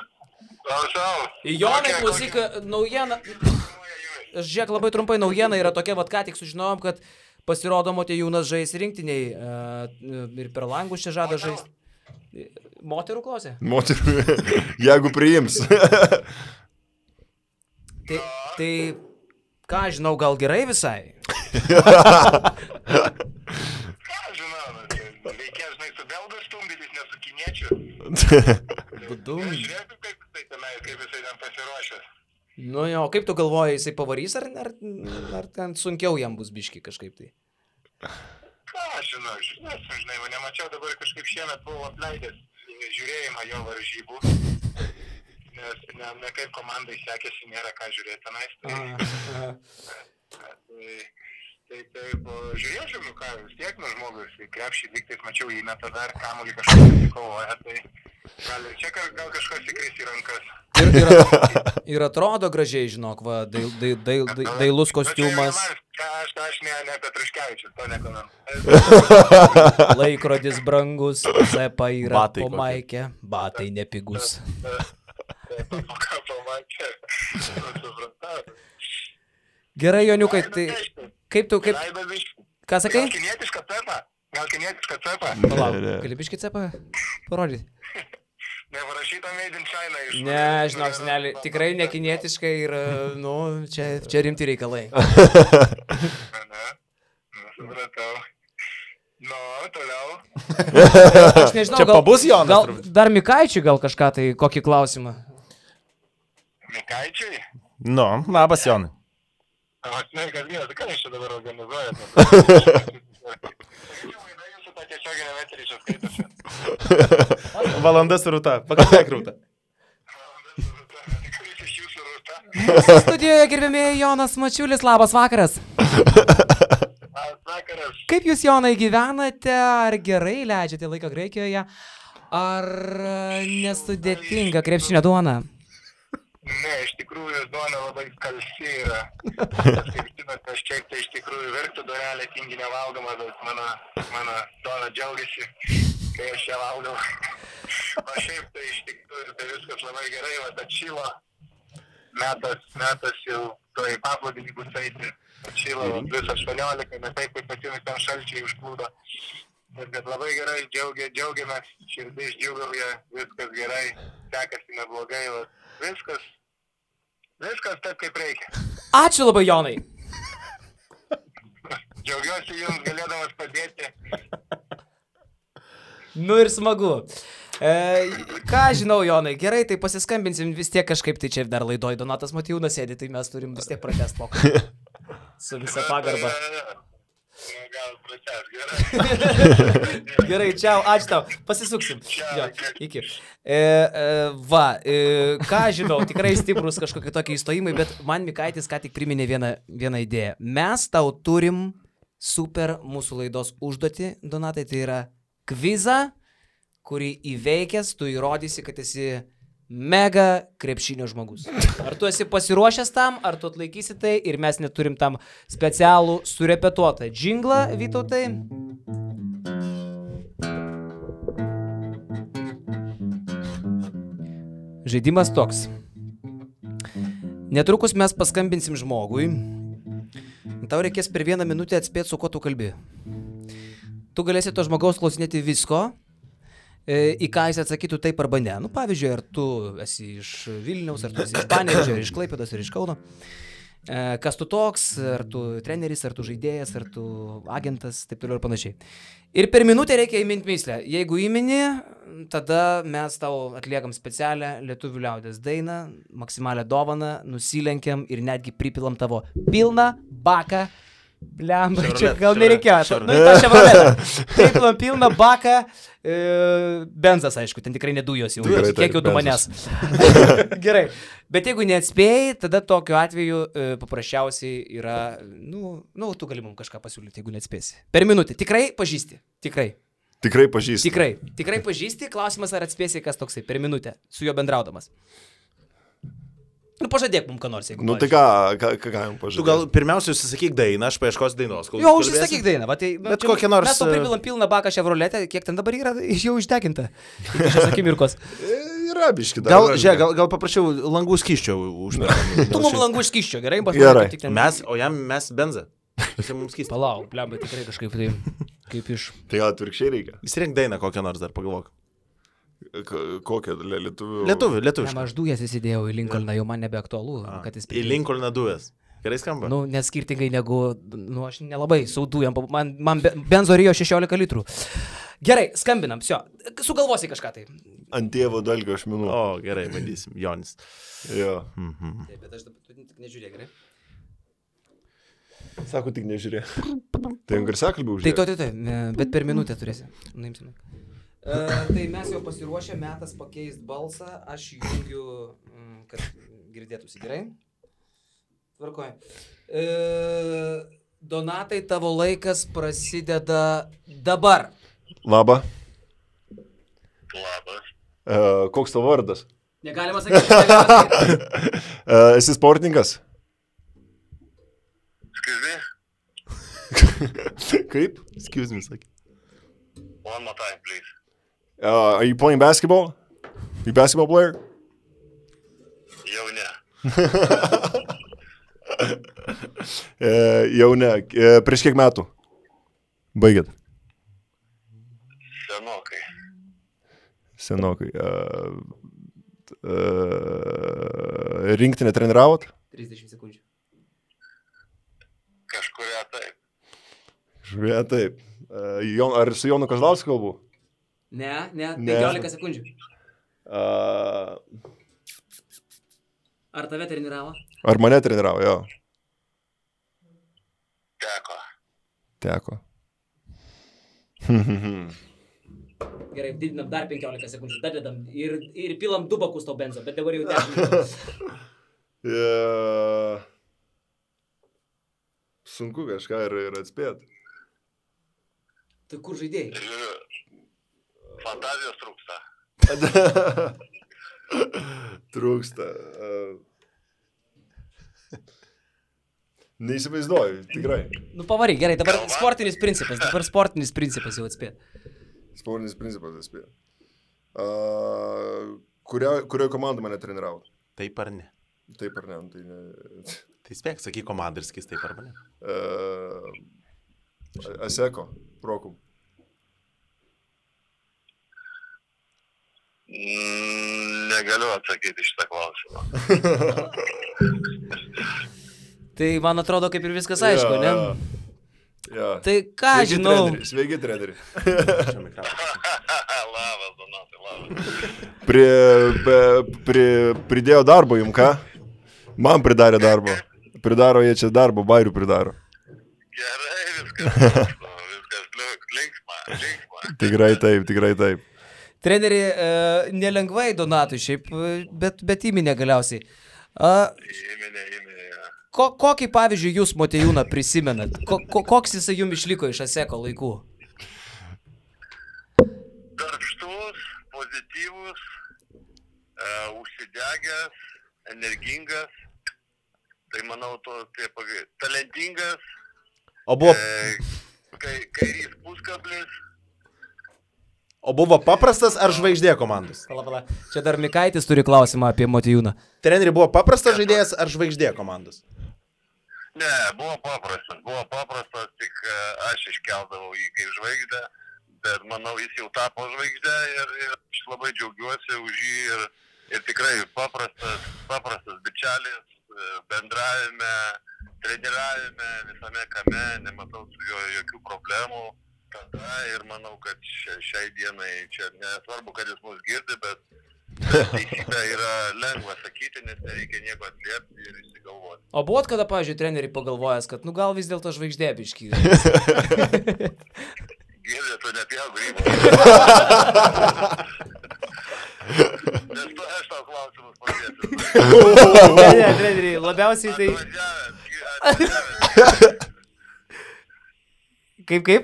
Klausau.
Jonai, klausyk, naujiena. Žiūrėk, labai trumpai naujiena yra tokia, vat ką tik sužinojom, kad pasirodo Motiejūnas žais rinktiniai ir per langus čia žada žaisti. Moterų klausė?
Moterų, jeigu priims.
Tai, ką žinau, gal gerai visai?
Ką žinau, reikia, žinai, su belgų stumdytis, ne su kiniečiu. Žiūrėk, kaip jisai ten pasiruošęs.
Nu jo, kaip tu galvoji, jisai pavarys, ar ten sunkiau jam bus biški kažkaip tai?
Ką žinau, žinai, nemačiau dabar kažkaip šiemet buvau apleidęs žiūrėjimą jo varžybų, nes ne kaip komandai sekėsi, nėra ką žiūrėti tenais. Taip, žiūrėčiau, ką vis tiek nuo žmogus, krepšį lygtais mačiau įmetą dar, kamuolį kažkas pasikovoja, tai gal ir čia gal kažkas įkris į rankas.
Ir atrodo gražiai, žinok, va, dailus kostiumas.
Aš ne Petruškevičius, to nekomentuoju.
Laikrodis brangus, zepa yra po maikė, batai nepigus.
Po maikė, supratau.
Gerai, Joniukai, tai kaip tu, ką sakai?
Gal kinietišką cepą?
Palauk, gali biškį cepą parodyti?
Neparašyta Made in China iš...
Ne, žinok, senelį, tikrai nekinietiškai ir, čia rimti reikalai.
Supratau. Toliau.
Aš nežinau,
čia pabus Jonas.
Gal dar Mikaičiui gal kažką tai, kokį klausimą?
Mikaičiui?
Nu, labas Jonai.
Sveikas gyvas, ką jūs čia dabar organizuojate? Jūsų tą tiesioginę meterį čia skaitosi.
Valandas rūta, pakalbėk rūta.
Kuris iš jūsų rūta?
Mūsų studijoje gerbėmėjai Jonas Mačiulis, labas vakaras.
Labas vakaras.
Kaip jūs, Jonai, gyvenate, ar gerai leidžiate laiką Graikijoje, ar nesudėtinga krepšinio duona?
Ne, iš tikrųjų duona labai skalsi yra. Kaip žinote, aš čia tai iš tikrųjų verktų duonelė tingi nevalgoma, bet mano duona džiaugiasi, kai aš ją valgau. O šiaip tai iš tikrųjų tai viskas labai gerai, va atšylo. Metas jau to į paplūdimį bus eiti. Atšylo vis 18, ne taip kaip pasimis ten šalčiai užplūdo. Bet labai gerai džiaugiamės, širdis džiugauja, viskas gerai, sekasi neblogai, viskas taip kaip reikia.
Ačiū labai, Jonai.
Džiaugiuosi jums galėdamas padėti.
Nu ir smagu. Ką žinau, Jonai, gerai, tai pasiskambinsim vis tiek kažkaip, tai čia dar laidoj Donatas Motiejūnas sėdi, tai mes turim vis tiek pratęst pokalbį. Su visa pagarba.
Gal pratęs, gerai.
Gerai, čiau, ačiū tau. Pasisuksim. Jo, iki. Ką žinau, tikrai stiprus kažkokie tokie įstojimai, bet man Mikaitis ką tik priminė vieną idėją. Mes tau turim super mūsų laidos užduotį, Donatai, tai yra kvizą, kurį įveikęs, tu įrodysi, kad esi mega krepšinio žmogus. Ar tu esi pasiruošęs tam, ar tu atlaikysi tai ir mes neturim tam specialų surepetuotą džinglą, Vytautai? Žaidimas toks. Netrukus mes paskambinsim žmogui. Tau reikės per 1 minutę atspėti, su kuo tu kalbi. Tu galėsi to žmogaus klausinėti visko, į ką jis atsakytų taip arba ne. Nu, pavyzdžiui, ar tu esi iš Vilniaus, ar tu esi iš Panevėžio, ar iš Klaipėdos, ar iš Kauno. Kas tu toks, ar tu treneris, ar tu žaidėjas, ar tu agentas, taip toliau ir panašiai. Ir per minutę reikia įminti myslę. Jeigu įmini, tada mes tau atliekam specialią lietuvių liaudės dainą, maksimalią dovaną, nusilenkiam ir netgi pripilam tavo pilną baką. Blemba, čia gal nereikėjo. Nu, tą Chevroletą. Pripilam pilną baką. Benzas, aišku, ten tikrai ne dujos jau. Kiek jau du manęs. Gerai. Bet jeigu neatspėjai, tada tokiu atveju paprasčiausiai yra, tu gali mums kažką pasiūlyti, jeigu neatspėsi. Per minutę. Tikrai pažįsti. Tikrai.
Tikrai pažįsti.
Tikrai pažįsti. Klausimas, ar atspėsi, kas toksai per minutę su juo bendraudamas. Nu, pažadėk mums ką nors, jeigu
tai ką jums pažadėk?
Tu gal pirmiausia užsisakyk dainą, aš paieškosiu dainos.
Jo, užsisakyk dainą. Va, tai,
bet kokią nors...
Mes to pripilam pilną baką Chevroletę, kiek ten dabar yra, jau išdeginta. Iki šios akimirkos.
Yra biški dar.
Gal paprašiau langų skysčio užmėgti.
Tu mums langų skysčio, gerai?
Mes benzą.
Palauk, blemba, tikrai kažkaip tai, kaip iš...
Tai gal atvirkščiai reikia.
Įsirink dainą kokią nors dar, pagalvok.
Kokią lietuvių?
Lietuvių.
Aš dujas įsidėjau į Lincolną, jau man nebeaktualu.
Į Lincolną dujas. Gerai skamba?
Nu, nes skirtingai negu, aš nelabai su dujam, man benzo rijo 16 litrų. Gerai, skambinam, sugalvosi kažką tai.
Ant tėvo dalgio ašmenų.
O, gerai, bandysim, Jonis.
Jo.
Taip, bet aš dabar tik nežiūrėk, gerai?
Sako, tik nežiūrėk. Tai garsiakalbį uždėk.
Tai, bet per minutę turėsi. Nuimsime. Tai mes jau pasiruošę, metas pakeist balsą, aš jungiu, kad girdėtųsi gerai. Tvarkoju. Donatai, tavo laikas prasideda dabar.
Labą.
Labas.
Koks tavo vardas?
Negalima sakyti.
Esi sportininkas?
Excuse me?
Kaip?
Excuse me, sakė.
One more time, please.
Are you playing basketball? You a basketball player?
Jau ne.
Jau ne. Prieš kiek metų? Baigėt? Senokai. Rinktinę treniravot?
30 sekundžių.
Kažkuria taip.
Kažkuria taip. Ar su Jonu Kazlausku kalbu?
Ne, 15 sekundžių. Ar tave treniravo?
Ar mane treniravo, jo. Teko.
Gerai, didinam dar 15 sekundžių, dadedam ir pilam 2 bakus tau benzo, bet dabar jau 10.
Sunku kažką ir atspėti.
Tai kur žaidėjai?
Fantazijos trūksta.
Trūksta. Neįsivaizduoju, tikrai.
Nu pavaryk, gerai, dabar sportinis principas jau atspėt.
Sportinis principas atspėt. Kurioje komandai mane treniravo?
Taip ar ne?
Taip ar ne, tai ne.
Tai spėk, sakyk komandą ir skis taip ar ne.
Aseko, Prokum.
Negaliu atsakyti šitą klausimą.
Tai man atrodo, kaip ir viskas aišku, ne?
Ja.
Tai ką žinau?
Sveiki, treneri.
Labas, Donatai, labas.
Pridėjo darbo jums, ką? Man pridarė darbo. Pridaro jie čia darbo, bairių pridaro.
Gerai, viskas linksma.
Tikrai taip.
Treneri, nelengvai Donatui šiaip, bet įminė galiausiai.
Įminė.
Kokį, pavyzdžiui, jūs, Motiejūną, prisimenat? Koks jisai jums išliko iš Aseko laikų?
Darbštus, pozityvus, degęs, energingas, tai manau, talentingas,
O buvo,
kairys puskablis.
o buvo paprastas ar žvaigždė komandos?
Pala. Čia dar Mikaitis turi klausimą apie Motiejūną.
Treneri buvo paprastas žaidėjas ar žvaigždė komandos?
Ne, buvo paprastas, tik aš iškeldavau jį kaip žvaigždę, bet manau, jis jau tapo žvaigždę ir aš labai džiaugiuosi už jį ir tikrai paprastas bičelis, bendravime, treniravime, visame kame, nematau su juo jokių problemų. Tada ir manau, kad šiai dienai čia nesvarbu, kad jis mus girdi, bet teisybė yra lengva sakyti, nes nereikia nieko atliepti ir išsigalvoti.
O buvot kada, pavyzdžiui, treneriai pagalvojęs, kad gal vis dėlto žvaigždė biškį?
Girdė, tu nepjauk grybų. Nes tu aš tau klausimus padėsiu.
Ne, treneriai, labiausiai tai... Kaip?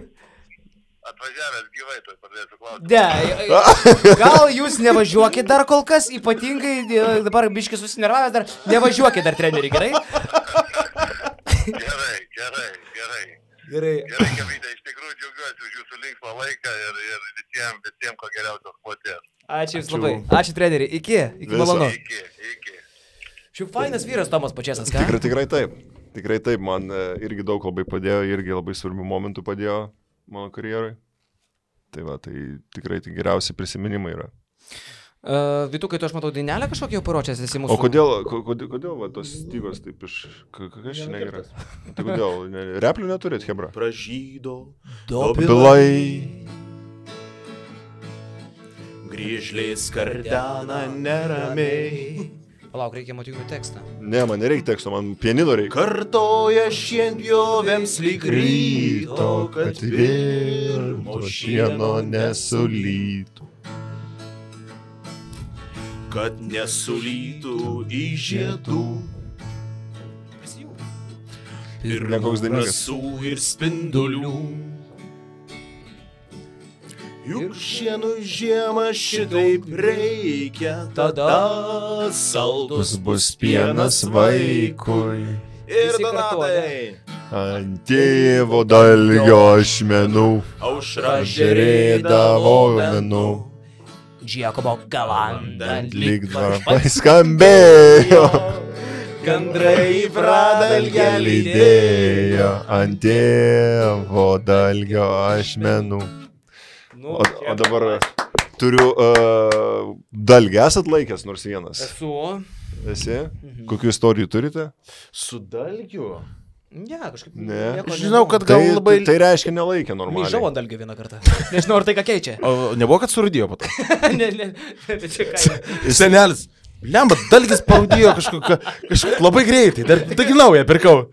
Atvažiavęs gyvai, tai padėsiu klausimus.
Ne, gal jūs nevažiuokit dar kol kas, ypatingai dabar biškį susinervavęs dar, nevažiuokit dar treneriai, gerai?
Gerai, Kavydė, iš tikrųjų džiaugiuosi už jūsų linksmą laiką ir visiems ko geriausios kloties.
Ačiū jums labai. Ačiū treneriai. Iki malonu.
Iki.
Šiaip fainas vyras Tomas Pačėsas, ką?
Tikrai taip, man irgi daug labai padėjo, irgi labai svarbių momentų padėjo mano karjerai. Tai va, tai tikrai tai geriausi prisiminimai yra.
Vytukai, tu aš matau dainelę kažkokią jau paruošęs esi mūsų.
O kodėl va, tos stygos taip iš... Kas čia negeras? Tai kodėl? Replių neturėt, hebra?
Pražydo
Dobilai.
Grįžliai skardena neramiai.
Palauk, reikia Motiejūnų tekstą.
Ne, man nereikia teksto, man pianino reikia.
Kartoja šienpjovėms lyg ryto, kad virmo šieno nesulytų. Kad nesulytų į žiedų. Ir rasų ir spindulių. Juk šienų žiemą šitaip reikia, tada saldus bus pienas vaikui. Ir Donatai.
Ant tėvo dalgio ašmenų
Aušra
žerėdavo menų.
Džiakobo galanda
Lyg varpai skambėjo,
Gandrai pradalgę
lydėjo ant tėvo dalgio ašmenų. O dabar turiu dalgį, esat laikęs nors vienas?
Esu.
Esi? Kokių istorijų turite?
Su dalgiu?
Ne, kažkaip.
Ne.
Žinau, kad gal labai...
Tai reiškia nelaikė normaliai.
Myžau ant dalgio vieną kartą. Nežinau, ar tai ką keičia.
O nebuvo, kad surūdėjo po to?
Ne, čia ką.
Senelis. Lemba, dalgis parūdėjo kažkaip labai greitai. Dar taigi naują pirkau.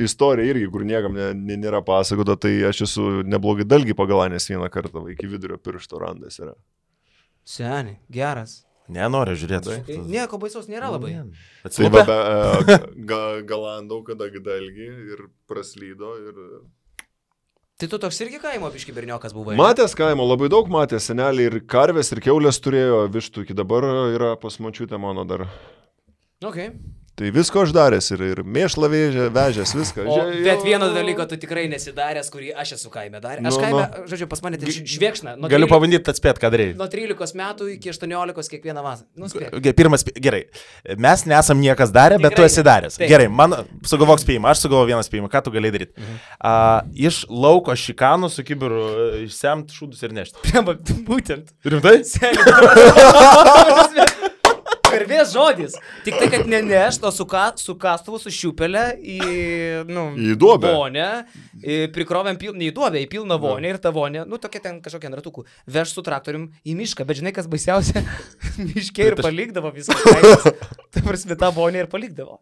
Istorija irgi, kur niekam nėra pasakota, tai aš esu neblogai dalgį pagalanęs vieną kartą, iki vidurio piršto randas yra.
Seniai, geras.
Nenoriu žiūrėti.
Nieko baisaus nėra labai.
Atsiliepė?
Galandau, kada dalgį ir praslydo ir...
Tai tu toks irgi kaimo biški berniokas buvai?
Matęs kaimo, labai daug matęs, seneliai ir karvės, ir kiaulės turėjo, vištų iki dabar yra pas močiutę mano dar.
Okay.
Tai visko aš daręs ir mėšlą vežęs, viską.
Bet vieno dalyko tu tikrai nesidaręs, kurį aš esu kaime daręs. Aš kaime, žodžiu, pas mane tai švėkšna.
Galiu pabandyti atspėti, ką daryti.
Nuo 13 metų iki 18 kiekvieną vasarą.
Gerai. Mes nesam niekas darę, bet tu esi daręs.
Taip.
Gerai, man sugalvok spėjimą, aš sugalvoju vieną spėjimą. Ką tu galėjai daryti? Iš lauko šikanų su kibiru išsemt šūdus ir nešti.
Būtent.
Rimtai?
Karvės žodis. Tik tai, kad nenešt, o su kastuvu, su šiupelė į
duobę.
Vonę, prikrovėm į duobę, į pilną vonę ir ta vonė, tokia ten kažkokia ratukų, veš su traktorium į mišką, bet žinai, kas baisiausia, miške ir palikdavo visą kaimas. Ta prasme, tą vonę ir palikdavo.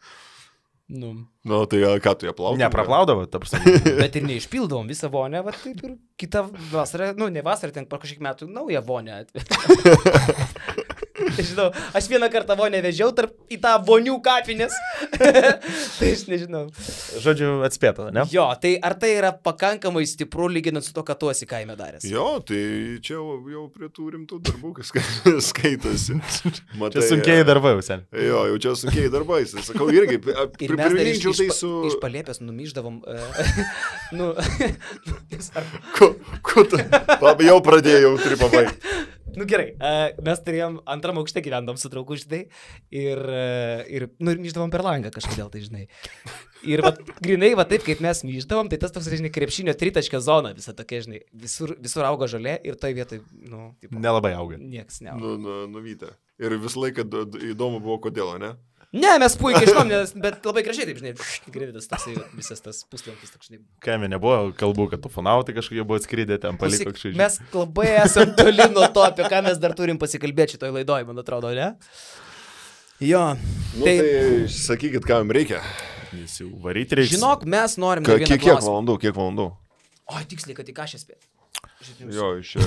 Tai ką tu ją plaudavo?
Nepraplaudavo, ta prasme.
Bet ir neišpildavom visą vonę, va taip ir kitą vasarą, ne vasarą, ten po kažkiek metų naują vonę atveju. Nežinau, aš vieną kartą vonę vežiau į tą vonių kapinės. Tai aš nežinau.
Žodžiu, atspėta, ne?
Jo, tai ar tai yra pakankamai stipru lyginant su to, ką tu esi kaime daręs?
Jo, tai čia jau prie tų rimtų darbų, kas skaitosi. Matai,
Čia sunkiai darbai, sen.
Jo, jau čia sunkiai darbai. Sakau, irgi,
Ir mes dar
priminčiau tai su...
iš Palėpės numyždavom.
Ko tu? Jau pradėjau, turi pabaigti.
Gerai, mes turėjom antram aukšte gyvendom su draugu, žinai, ir myždavom per langą kažkodėl, tai žinai. Ir grinai, taip kaip mes myždavom, tai tas toks, žinai, krepšinio tritaškio zona visą tokia, žinai, visur auga žolė ir toj vietoj,
Nelabai auga.
Nieks neauga.
Nuvytė. Ir visą laiką įdomu buvo, kodėl, ne?
Ne, mes puikiai žinom, bet labai gražiai, taip, žinai, grividas toksai, visas tas puslankis toks, žinai.
Kaime nebuvo kalbų, kad ufonautai kažkokie buvo atskridę ten paliko kažkaip.
Mes labai esam toli nuo to, apie ką mes dar turim pasikalbėti šitoj laidoj, man atrodo, ne? Jo.
Tai sakykit, ką jums reikia.
Jis jau varyti reikia.
Žinok, mes norim dar vieną klausimą.
Kiek valandų?
O, tiksliai, kad į ką šią spėt.
Jo, iš...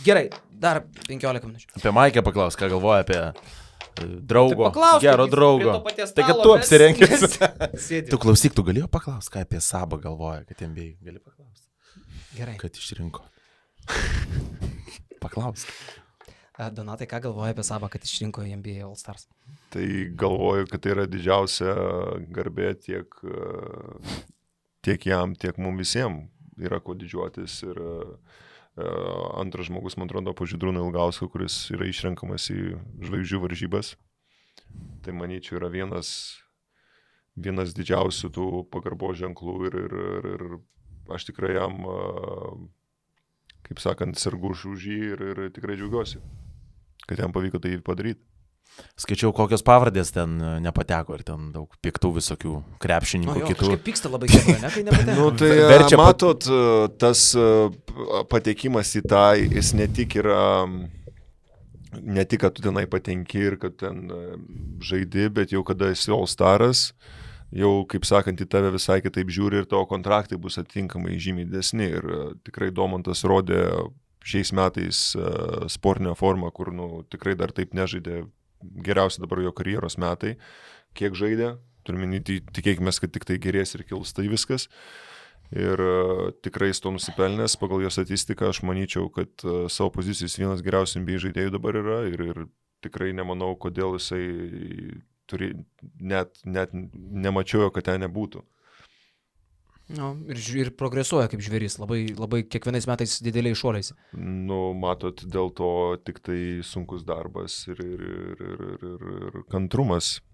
Gerai, dar 15 minučių.
Apie Maikę paklaus, ką galvoja apie draugo,
tai
gero draugo. Tai kad tu apsirengęs. Tu klausyk, tu galėjo paklaus, ką apie Sabą galvoja, kad NBA gali paklausti.
Gerai.
Kad išrinko. Paklausk.
Donatai, ką galvoja apie Sabą, kad išrinko NBA All Stars?
Tai galvoju, kad tai yra didžiausia garbė tiek jam, tiek mums visiems. Yra ko didžiuotis ir antras žmogus, man atrodo, po Žydrūną Ilgauską, kuris yra išrenkamas į žvaigždžių varžybas. Tai manyčiau yra vienas didžiausių tų pagarbos ženklų ir aš tikrai jam, kaip sakant, sergu už jį ir tikrai džiaugiuosi, kad jam pavyko tai padaryti.
Skaičiau, kokios pavardės ten nepateko ir ten daug piktų visokių krepšininkų kitų.
Kažkaip pyksta labai gerai, ne, kai nepateko.
Tai verčia matot, tas patekimas į tą, jis ne tik yra, ne tik, kad tu tenai patenki ir kad ten žaidi, bet jau kada esi All Staras, jau, kaip sakant, į tave visai kitaip žiūri ir tavo kontraktai bus atitinkamai žymiai didesni. Ir tikrai Domantas rodė šiais metais sportinę formą, kur tikrai dar taip nežaidė. Geriausia dabar jo karjeros metai, kiek žaidė, turime tikėkime, kad tik tai gerės ir kils tai viskas. Ir tikrai jis to nusipelnęs, pagal jo statistiką, aš manyčiau, kad savo pozicijos vienas geriausių NBA žaidėjų dabar yra ir tikrai nemanau, kodėl jisai net nemačiau, kad ten nebūtų.
No, ir progresuoja kaip žvėris, labai kiekvienais metais dideliais šuoliais.
Matot, dėl to tik tai sunkus darbas ir kantrumas.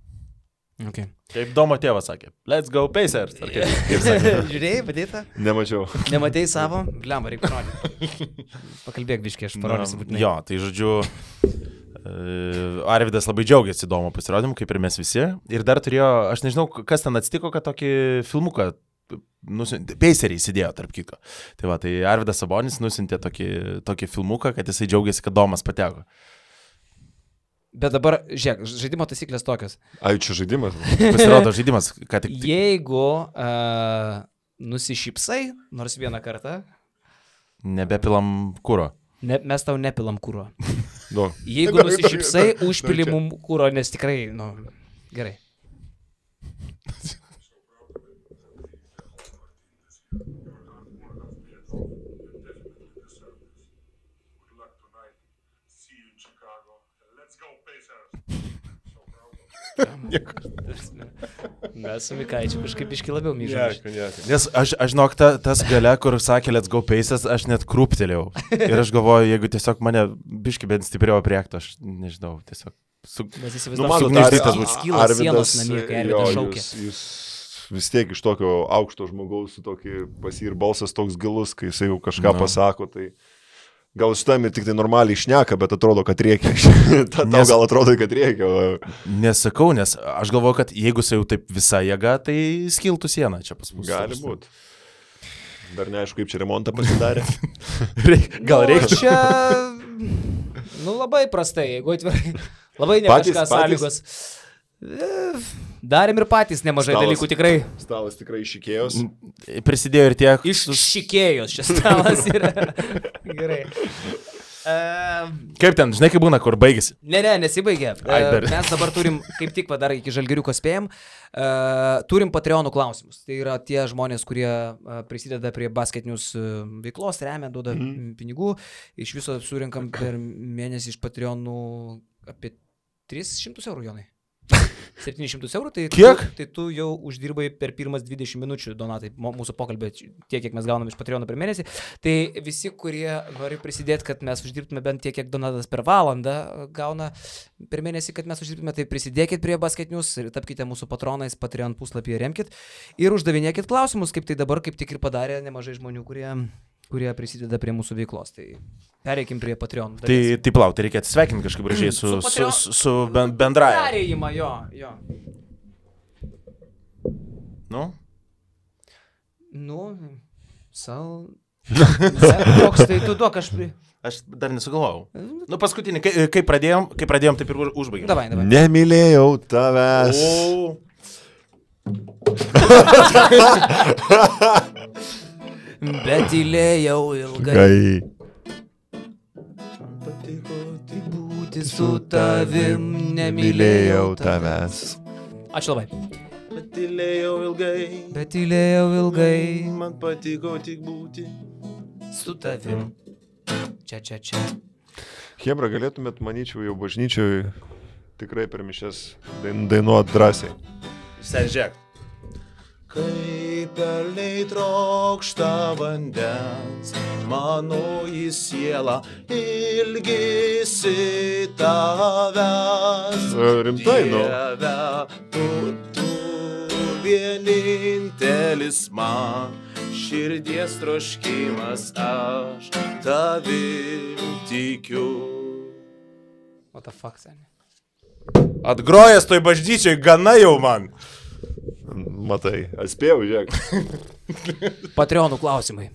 Okay.
Kaip Domo tėvas sakė, let's go Pacers. Kaip sakė?
Žiūrėjai, padėta?
Nemačiau.
Nematėjai savo? Blemba, reikia parodyti. Pakalbėk biškį, aš parodysiu būtinai.
Jo, tai žodžiu, Arvydas labai džiaugiasi Domo pasirodymu, kaip ir mes visi. Ir dar turėjo, aš nežinau, kas ten atsitiko, kad tokį filmuką Paceriai įsidėjo, tarp kitko. Tai va, tai Arvydas Sabonis nusintė tokį filmuką, kad jisai džiaugiasi, kad Domas pateko.
Bet dabar, žiūrėk, žaidimo taisyklės tokios.
Ai, čia žaidimas?
Pasirodo žaidimas, ką tik.
Jeigu nusišypsai, nors vieną kartą.
Nebepilam kuro.
Mes tau nepilam kuro.
No.
Jeigu nusišypsai, užpili mum kuro, nes tikrai, gerai. Mes su Mikaičiu kažkaip biškį labiau myžom.
Nes aš žinok, tas gale, kur sakė let's go Pacers, aš net krūptelėjau. Ir aš galvoju, jeigu tiesiog mane biškį bent stipriau priektų, aš nežinau, tiesiog
sugniuždytas būtų. Skyla sienos namie, kai Arvydas šaukė.
Jūs vis tiek iš tokio aukšto žmogaus, su tokį ir balsas toks gilus, kai jisai jau kažką pasako, tai... Gal šitam ir tik tai normaliai šneka, bet atrodo, kad reikia. Tau gal atrodo, kad reikia.
Nesakau, nes aš galvoju, kad jeigu jis jau taip visą jėgą, tai skiltų sieną čia pas mus.
Gali būti. Dar neaišku, kaip čia remontą pasidarė.
Gal reikia.
Čia, labai prastai, jeigu atvirai. Labai ne kažkas sąlygos. Darėm ir patys nemažai dalykų tikrai.
Stalas tikrai iššikėjos.
Prisidėjo ir tiek.
Iššikėjos šis stalas yra. Gerai.
Kaip ten, žinai, kaip būna, kur baigėsi?
Ne, nesibaigė. Mes dabar turim, kaip tik dar iki Žalgiriuko spėjom, turim Patreonų klausimus. Tai yra tie žmonės, kurie prisideda prie basketinius veiklos, remia, duoda pinigų. Iš viso surinkam per mėnesį iš Patreonų apie 300 eurų, Jonai. 700 eurų, tai
kiek?
Tai tu jau uždirbai per pirmas 20 minučių, Donatai, mūsų pokalbė, tiek, kiek mes gaunam iš Patreono per mėnesį. Tai visi, kurie nori prisidėti, kad mes uždirbtume bent tiek, kiek Donatas per valandą gauna per mėnesį, kad mes uždirbtume, tai prisidėkit prie Basket News ir tapkite mūsų patronais, Patreon puslapyje remkit ir uždavinėkit klausimus, kaip tai dabar, kaip tik ir padarė nemažai žmonių, kurie prisideda prie mūsų veiklos. Tai pereikim prie Patreon.
Tai plau, tai reikia atsisveikinti kažkaip gražiai su bendraja.
Perėjimą, jo. Toks, tai tu duok,
Aš dar nesugalvojau. Paskutinį, kai pradėjom, taip ir užbaigėm.
Davai.
Nemylėjau tavęs.
Bet tylėjau ilgai. Patiko tik būti su tavim, nemylėjau tavęs. Ačiū labai.
Bet tylėjau ilgai. Man patiko tik būti
su tavim. Čia.
Chebra, galėtumėt, manyčiau, jau bažnyčioj tikrai per mišias dainuot drąsiai.
Senžiek. Kaip pelniai trokšta vandens, mano į sielą ilgisi tavęs.
Rimtai,
Dieve, tu vienintelis man, širdies troškimas, aš tavim tikiu.
What the fuck, seni?
Atgrojęs toj bažnyčioj gana jau man.
Matai, atspėjau, žiūrėk.
Patreonų klausimai.